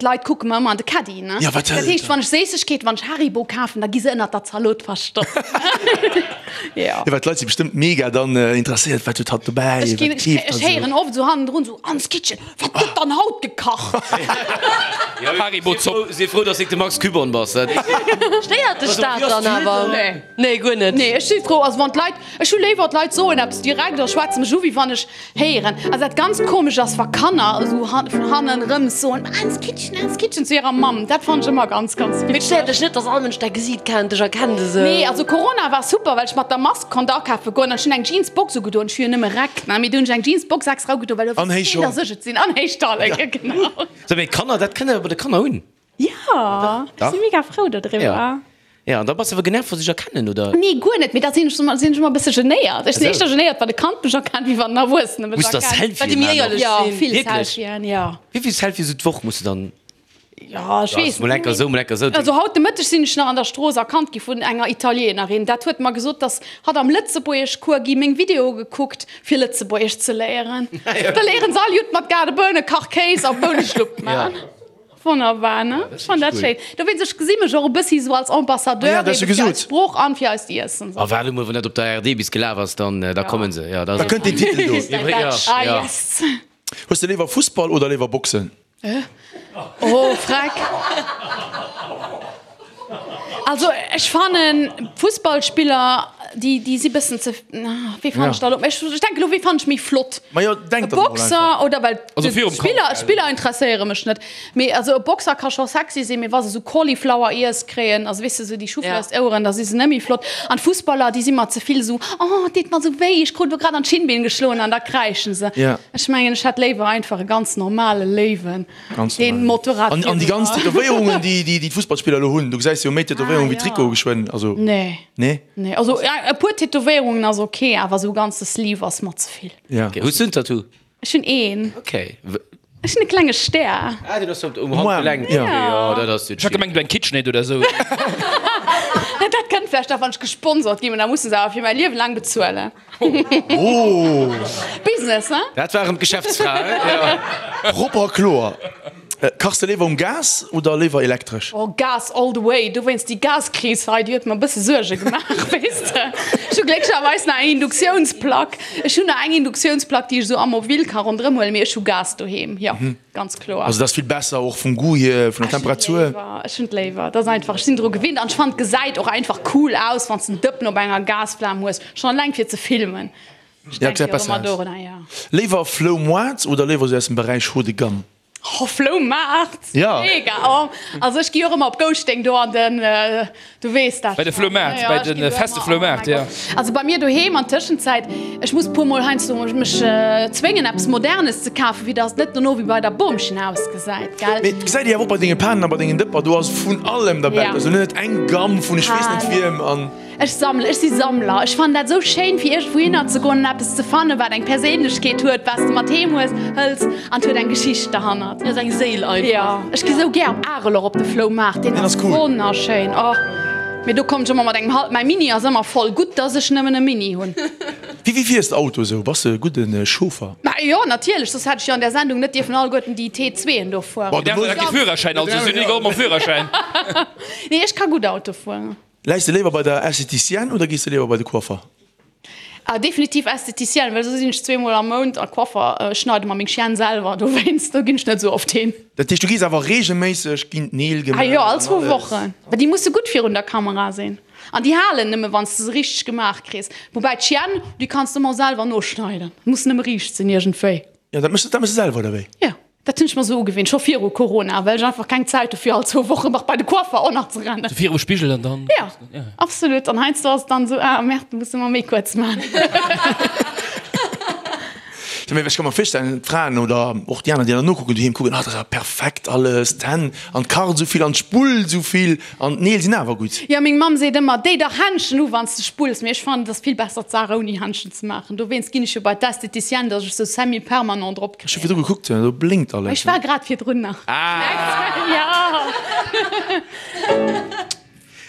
d'Leit kucke mer ëmmer an de Caddie, ne. Jo, wat Dat heescht, wann ech Séissegkeeten, wann ech Haribo kafen, da gi se ënnert der Zalot verstoppt. Jo, well d'Leit si bestëmmt mega dann interesséiert, wat huet hatt dobäi, Ech ginn, wat keeft ech hatt héieren esou. oft esou hannendrun esou, Ans Kitchen, wat gëtt dann haut gekacht? Haribo Zopp. Si frou, dass de de Max Küborn bass. Stéiert dech dat dann awer? Nee. Nee, guer net. Nee, ech si frou, also wann d'Leit, ech hu léiwer d'Leit soen eppes direkt a schwätze mech u wéi wann ech Héieren. Also dat ganz komesch ass wa Kanner esou vun hannen rëms soen, Ans Kitchen, Ans Kitchen zu hirer Mamm. Dat fannen ech ëmmer ganz, ganz Mee et stéiert witzeg. dech net, dass all Mënsch däi Gesiit kennt, dech erkennt esou? Nee, also Corona war super, well ech mat der Mask konnt akafe goen an ech hunn eng Jeansbox ugedoen. Ech hu jo nëmme Räck, ne, mee du hunn ech eng Jeansbox extra ugedoen, well do An wosst héich keen, Schong. dass ech et sinn. An héich Talleke, genau. Sou, mee Kanner, dat kënnt awer bei de Kanner un. Jo, ech si mega frou dodriwwer. Ja, an da bass de awer genervt, wa se dech erkennen, oder? Nee, guer net, mee da sinn ech sinn ech ëmmer e bësse genéiert. Ech sinn éischter genéiert, wann e Kand mech erkennt, wéi wann en Erwuessene mech Muss der erkennt. Selfien Well déi méi maachen och? éierlech Jo, sinn. vill Wierklech? Selfien, jo. Wéi vill Selfies esou d'Woch muss de dann? Jo, ech weess Mol enker esou, mol enker esou. Also haut de Mëtteg sinn ech nach an der Strooss erkannt gi vun enger Italienerin. Dat huet mer gesot, dass hatt am Lëtzebuergeschcours gi meng Videoe gekuckt, fir Lëtzebuergesch ze léieren. Da léieren se all Judd mat Gaardeboune, Kachkéis a Bouneschlupp maachen. Wonnerbar, ne? Ech fannen dat schéin. Dowéinst, ech gesi mech och e bëssi sou als Ambassadeur Ah ja, dat hues du eben fir eis gesot. Sprooch an fir eist Iessen. A waarde mol, wann dat op der ARD bis gelaf ass, dann da kommen se. Ja, da Da kënnt deen Titel do. Ja, Ah, ja. yes. Hues de léiwer Fussball oder léiwer Boxen? Oh, freck. Also ech fannen Fussballspiller, déi, déi si bëssen ze, wéi fannen ech da lo, ech denken elo, wéi fannen ech méi flott? Majo, denk E der mol Boxer einfach. oder well Also virum Kampf, d'Spiller, gell? d'Spiller interesséiere mech net. Mee also e Boxer ka scho sexy sinn, mee wa se sou Cauliflower Ears kréien, also weess de sou déi Choufleurs-Oueren, da si se net méi flott. An d'Fussballer, déi si mer ze vill sou, oh et deet mer sou wéi, ech krut elo grad an d'Schinnbeen geschloen an da kräischen se. Ja. Ech mengen ech hätt léiwer einfach e ganz normale Léiwen. Ganz Den normal. Motorrad An, an déi ganz Tätowéierungen, déi, déi, déi d'Fussballspiller elo hunn, du gesäis jo méi Tätowéierungen Ah, wéi ja. Trikote geschwënn, also. Nee. Nee? Nee, also ja, e puer Tätowéierungen ass ok, awer sou ganze Sleeve ass mer ze vill. Ja. Okay. Hues du en Tattoo? Ech hunn een. Okay. Ech hunn e klenge Stär. Ah, den ass um Arm, Handgelenk. ja. Okay, ja, dat ass Ech hat gemengt, du eng KitchenAid oder sou. Dat kënnt vläicht nach, wann ech gesponsert ginn, mä da musse se awer fir mäi Liewe laang bezuelen. Business, hein? Dat war erëm d'Geschäftsfra, hein? Jo. Propper a kloer. Kachs de léiwer um Gas oder léiwer elektresch? Oh, Gas all the way. Dowéinst déi Gaskris hei, déi huet mer e bësse Suerge gemaach, weess de. Ech hu glécklecherweis nach eng Induktiounsplack. Ech hunn nach eng Induktiounsplack, déi ech esou am Mobile ka ronderëm huelen, mee ech hu Gas doheem, jo. Ganz kloer. Also dat ass vill besser och vum Goût hier, vun der Temperatur. Ech hunn et léiwer. Dat ass einfach, ech sinn dru gewinnt an ech fannen et gesäit och einfach cool aus, wann s de en Dëppen op enger Gasflam hues, schonn eleng fir ze filmen. Ech denke jo ëmmer dorunner, jo. Léiwer Floumoart oder léiwer esou aus dem Beräich Haut de gamme? Oh Floumaart! Ja. Mega! Oh, also ech gi och ëmmer op Gouschteng do an den. Du weess dat Bei de Floumaart, bei de feste Floumaart, jo. Also bei mir doheem an Tëschenzäit, ech muss puer mol heiansdo mech zwéngen eppes Modernes ze kafen, fir dass et net dono wéi bei der Boomchen ausgesäit, gell? Mee et gesäit ee awer och bei denge Panen a bei dengen Dëpper, do ass vun allem derbäi, also net eng Gamm vun ech weess net wiem an. Ech sammelen, ech si Sammler. Ech fannen dat esou schéin, fir iergendwouhinner ze goen an eppes ze fannen, wat eng Perséinlechkeet huet, wat s de mat heem hues, hëls an et huet eng Geschicht derhannert. Jo, ass eng Séil einfach. Jo, ech gi sou gär op Arel och op de Floumaart, deen ass wonnerschéin. Oh, mee do kommen ech ëmmer mat engem hal, mäi Mini ass ëmmer voll. Gutt, dass ech nëmmen e Mini hunn. Wéi wéi fiers de Auto esou? Bass de e gudde Chauffer? Ma jo, natierlech, soss hätt ech jo an där Sendung net dierfen alleguerten déi T2en do fueren. Bon, de hues kee Führerschäin, also si hunn egal mam Führerschäin. Nee, ech ka gutt Auto fueren. Läis de léiwer bei der Esthéticienne oder gees de léiwer bei de Coiffer? Ah, definitiv Esthéticienne, well sou sinn ech zweemol am Mount a Coiffer. Ech schneide mer meng Chienne selwer, dowéinst do ginn ech net sou oft hin. Dat heescht, du gees awer reegelméisseg, ginn d'Neel gemaach? Ah jo, all zwou Wochen. Well déi musse gutt virun der Kamera sinn an déi halen nëmme wann s de se richteg gemaach kriss. Woubäi d'Chienne, déi kanns de ëmmer selwer noschneiden, muss nëmme riicht sinn iergendwéi. Jo, dat méchs de selwer, oder wéi? Jo. Dat hunn ech mer sou ugewinnt, scho viru Corona, well ech einfach keng Zäit hu fir all zwou Wochen nach bei de Coiffer och nach ze rennen. Sou virum Spigel an dann. Jo, absolut. An heiansdo ass et dann sou, ah merde, muss ëmmer méi kuerz man. Mee ech ka mer virstellen, d'Fraen oder och déi aner, déi dann nokucken doheem, kucken, ah dat ass awer perfekt alles, d'Hänn an d'Kart esou vill an d'Spull esou vill an d'Neel sinn awer gutt. Jo, meng Mamm seet ëmmer, déi dach Händschen u wann s de spulls. Mee ech fannen, et ass vill besser d'Saach ouni Händschen ze maachen. Dowéinst ginn ech jo bei d'Esthéticienne, dass ech sou semi-permanent drop. Ech hu virdru gekuckt, do blénkt alles. Ech war grad virdrun nach.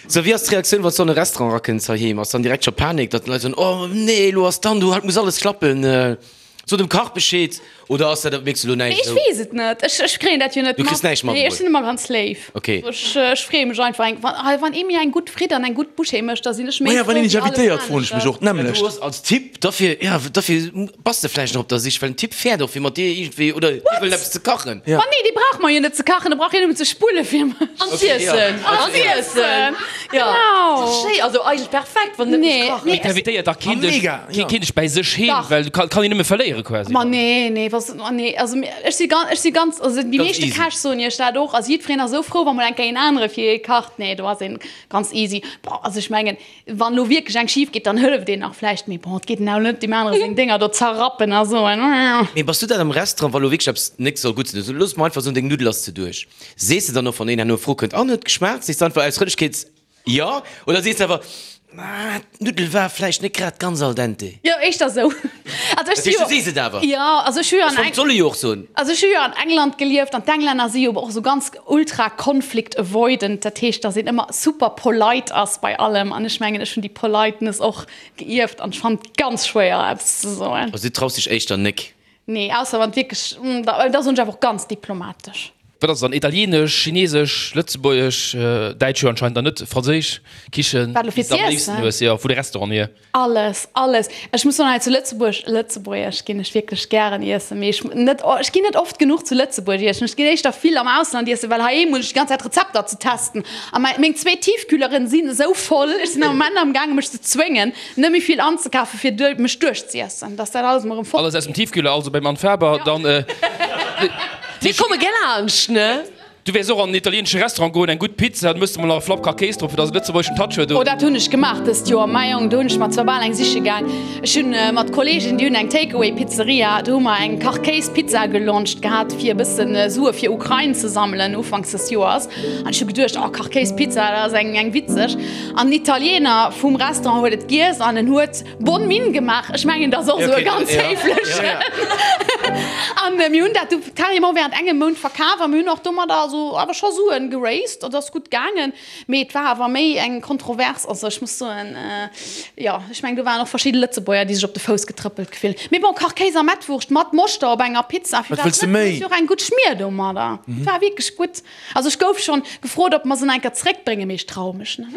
Sou, wéi ass d'Reaktioun, wann s du an e Restaurant erakënns heiheem? Ass dann direkt scho Panik, datt d'Leit soen, Oh nee, elo ass dann do, haut muss alles klappen. So dem Kach Bescheed oder ass dat, mierks du elo näischt? Ech weess et net, ech ech kréien dat jo net mat. Du kriss näischt mat? Nee, ech sinn ëmmer ganz léif. Okay. Ech ech freeë mech einfach eng, wann wann ee mir eng gutt Fritt an eng gutt Bouchée mécht, da sinn ech méi Maja, wann frou een dech wéi alles invitéiert, froen ech mech anescht. och d'nämmlecht. Du ass als Typ, dofir, ja, dofir bass de vläicht nach op der Sich, well en Typ fäert och fir mat dir iergendwéi oder hie wëllt eppes ze kachen. Ma nee, dee brauch mer jo net ze kachen, de brauch hien nëmmen ze spulle fir mech. An z'iessen. An z'iessen. Genau. Schéi, also eigentlech perfekt, wann net muss kachen. Mee t'invitéiert dach keen dech, keen dech bäi sech heem, well du kann een nëmme verléiere quasi. Ma nee, nee, was, ma nee, also ech si ganz, ech si ganz, also déi meeschte Käch soen iech dat och, also jiddwereen ass esou frou, wa mol eng Kéier een anere fir ee kacht. Nee, do ass een ganz easy. Bon, also ech mengen, wann elo wierklech eng schif geet, dann hëlleft een nach vläicht, mee bon, et geet en awer net deem anere seng Dénger do zerrappen a soen. Mee bass du dat am Restaurant, wa lo wierklech eppes net soll gutt sinn, also looss mer einfach soen, deng Nuddel ass ze duerch. Sees de dann och, wann een herno fro kënnt, an huet geschmaacht, sees de einfach aus Frëndlechkeet jo oder sees de awer, ah, d'Nuddel war vläicht net grad ganz al dente? Jo, éischter esou. Also ech si jo. Du sees et awer. Jo, also ech hu jo an Eng. Soll e jo och soen. Also ech hu jo an England gelieft an d'Englänner si jo och esou ganz ultra conflict avoidant, dat heescht, datt een ëmmer super polite ass bei allem an ech mengen, ech hunn déi Politeness och geierft an ech fannen et ganz schwéier eppes ze soen. Also du traus dech éischter nek? Nee, ausser wann et wierklech, da soen ech awer och ganz diplomatesch. Wat ass et dann? Italienesch, Chinesesch, Lëtzebuergesch, Däitsch jo anscheinend dann net, Franséisch Kichen, Wat elo déi fir s de am z'iessen? léifsten hues, jo, vu de Restauranten hier? Alles, alles. Ech muss soen, hei zu Lëtzebuerg, Lëtzebuergesch ginn ech wierklech gären iessen, mee ech net, ech ginn net oft genuch zu Lëtzebuerg iessen. Ech ginn éischter vill am Ausland iessen, well heiheem hunn ech déi ganz Zäit Rezepter ze testen a mäi, meng zwee Tiefkühleren sinn esou voll, ech sinn am Moment am gaange mech ze zwéngen, Net méi vill anzekafen fir duer mech duerchziessen, dass dat alles emol erëm fort Alles aus dem Tiefkühler, also beim Anne Faber, dann. Mir komme gär laanscht, ne? Du wäers och an en italieenesche Restaurant goen, eng gutt Pizza, dann mëss de mol nach e Flapp Kachkéis drop, fir dass e lëtzebuergeschen Touch huet, Oh, oder? dat hunn ech gemaach dëst Joer, mäi Jong, do hunn ech mer zwar bal eng siche gaang. Ech hunn mat Kolleegen, déi hunn eng Takeaway-Pizzeria, do hu mer eng Kachkéis-Pizza gelauncht gehat, fir e bëssen Sue fir Ukrain ze sammelen ufanks des Joers. An ech hu geduecht, oh, Kachkéis-Pizza, dat ass eng eng witzeg. An den Italiener vum Restaurant huet et giess an en huet bonne mine gemaach. Ech mengen, dat ass och esou e ganz héiflechen. An mir hunn dat du carrément während engem Mount verkaf a mir hunn och domadder also awer scho Suen geraised. Dat ass gutt gaangen, mee et war awer méi eng Kontrovers. Also ech muss soen, jo, ech mengen do waren och verschidde Lëtzebuerger, déi sech op de Fouss getrëppelt gefillt. Mee bon, Kachkéis a Mettwurscht mat Moschter op enger Pizza, Wat wëlls de méi? Jo och eng gutt Schmier domadder. Et war wierklech gutt. Also ech gouf schon gefrot ob mer se enker zréckbréngen, mee ech traue mech net.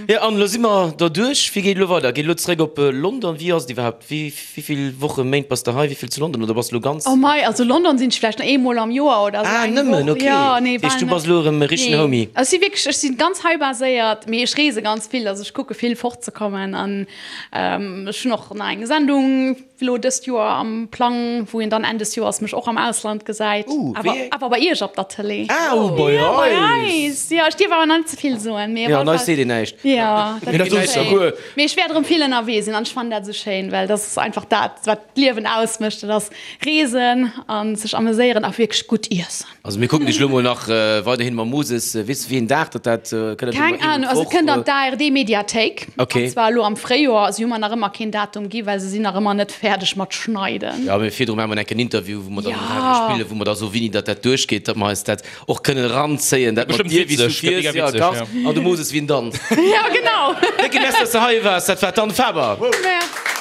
Jo an elo si mer derduerch. Wéi geet elo weider? Geet elo zréck op London? Wéi ass et iwwerhaapt? Wéi vill Wochen, Méint bass de hei? Wéi vill zu London? Oder bass de elo ganz? Oh mei, also London sinn ech vläicht nach eemol am Joer oder esou Ah eng nëmmen, Woch. ok. Jo, nee, Dat heescht bal du net. bass elo erëm e richtegen Nee, Homie? ech si wierklech, ech si ganz hei baséiert, mee ech reese ganz vill. Also ech kucke vill fortzekommen an ech hunn och nach eng Sendung. Elo dëst Joer am Plang, wou een dann Enn des Joers mech och am Ausland gesäit. Uh, Awer, wéi? awer bei Iech op der Tëlee. Ah, uh, bei Ja, bei eis! eis! Jo, ech dierf awer nach net ze vill soen, mee op Jo, alle an eis Fall. seet een näischt. Jo, dat Mee dat ass ass schéin. guer. Mee ech wäert erëm vill ënnerwee sinn an ech fannen dat esou schéin, well dat ass einfach dat, wat d'Liewen ausmécht, dat ass reesen a sech ameséieren a wierklech gutt iessen. Also mir kucken dech lo mol nach weiderhin mam Moses. Weess de wéi een Dag datt dat kënnt? Keng Ahnung, also et kënnt an d'ARD Mediathéik, Okay. an zwar elo am Fréijoer. Si hu mer nach ëmmer keen Datum gi, well se sinn nach ëmmer net fäerdeg mat schneiden. Jo, mee virdru maache mer enk en Interview, wou mer dann Ja. um Radio spillen, wou mer da soen, wéini datt dat duerchgeet, datt mer eis dat och kënnen eranzéien, dat mat Bestëmmt dir, wéi s du witzeg, gëtt fiers, mega jo, witzeg, kachs, ja. an de Moses, wéi en danzt. Ja, genau. Décke Merci, datt s de hei waars. Dat war d'Anne Faber. Merci.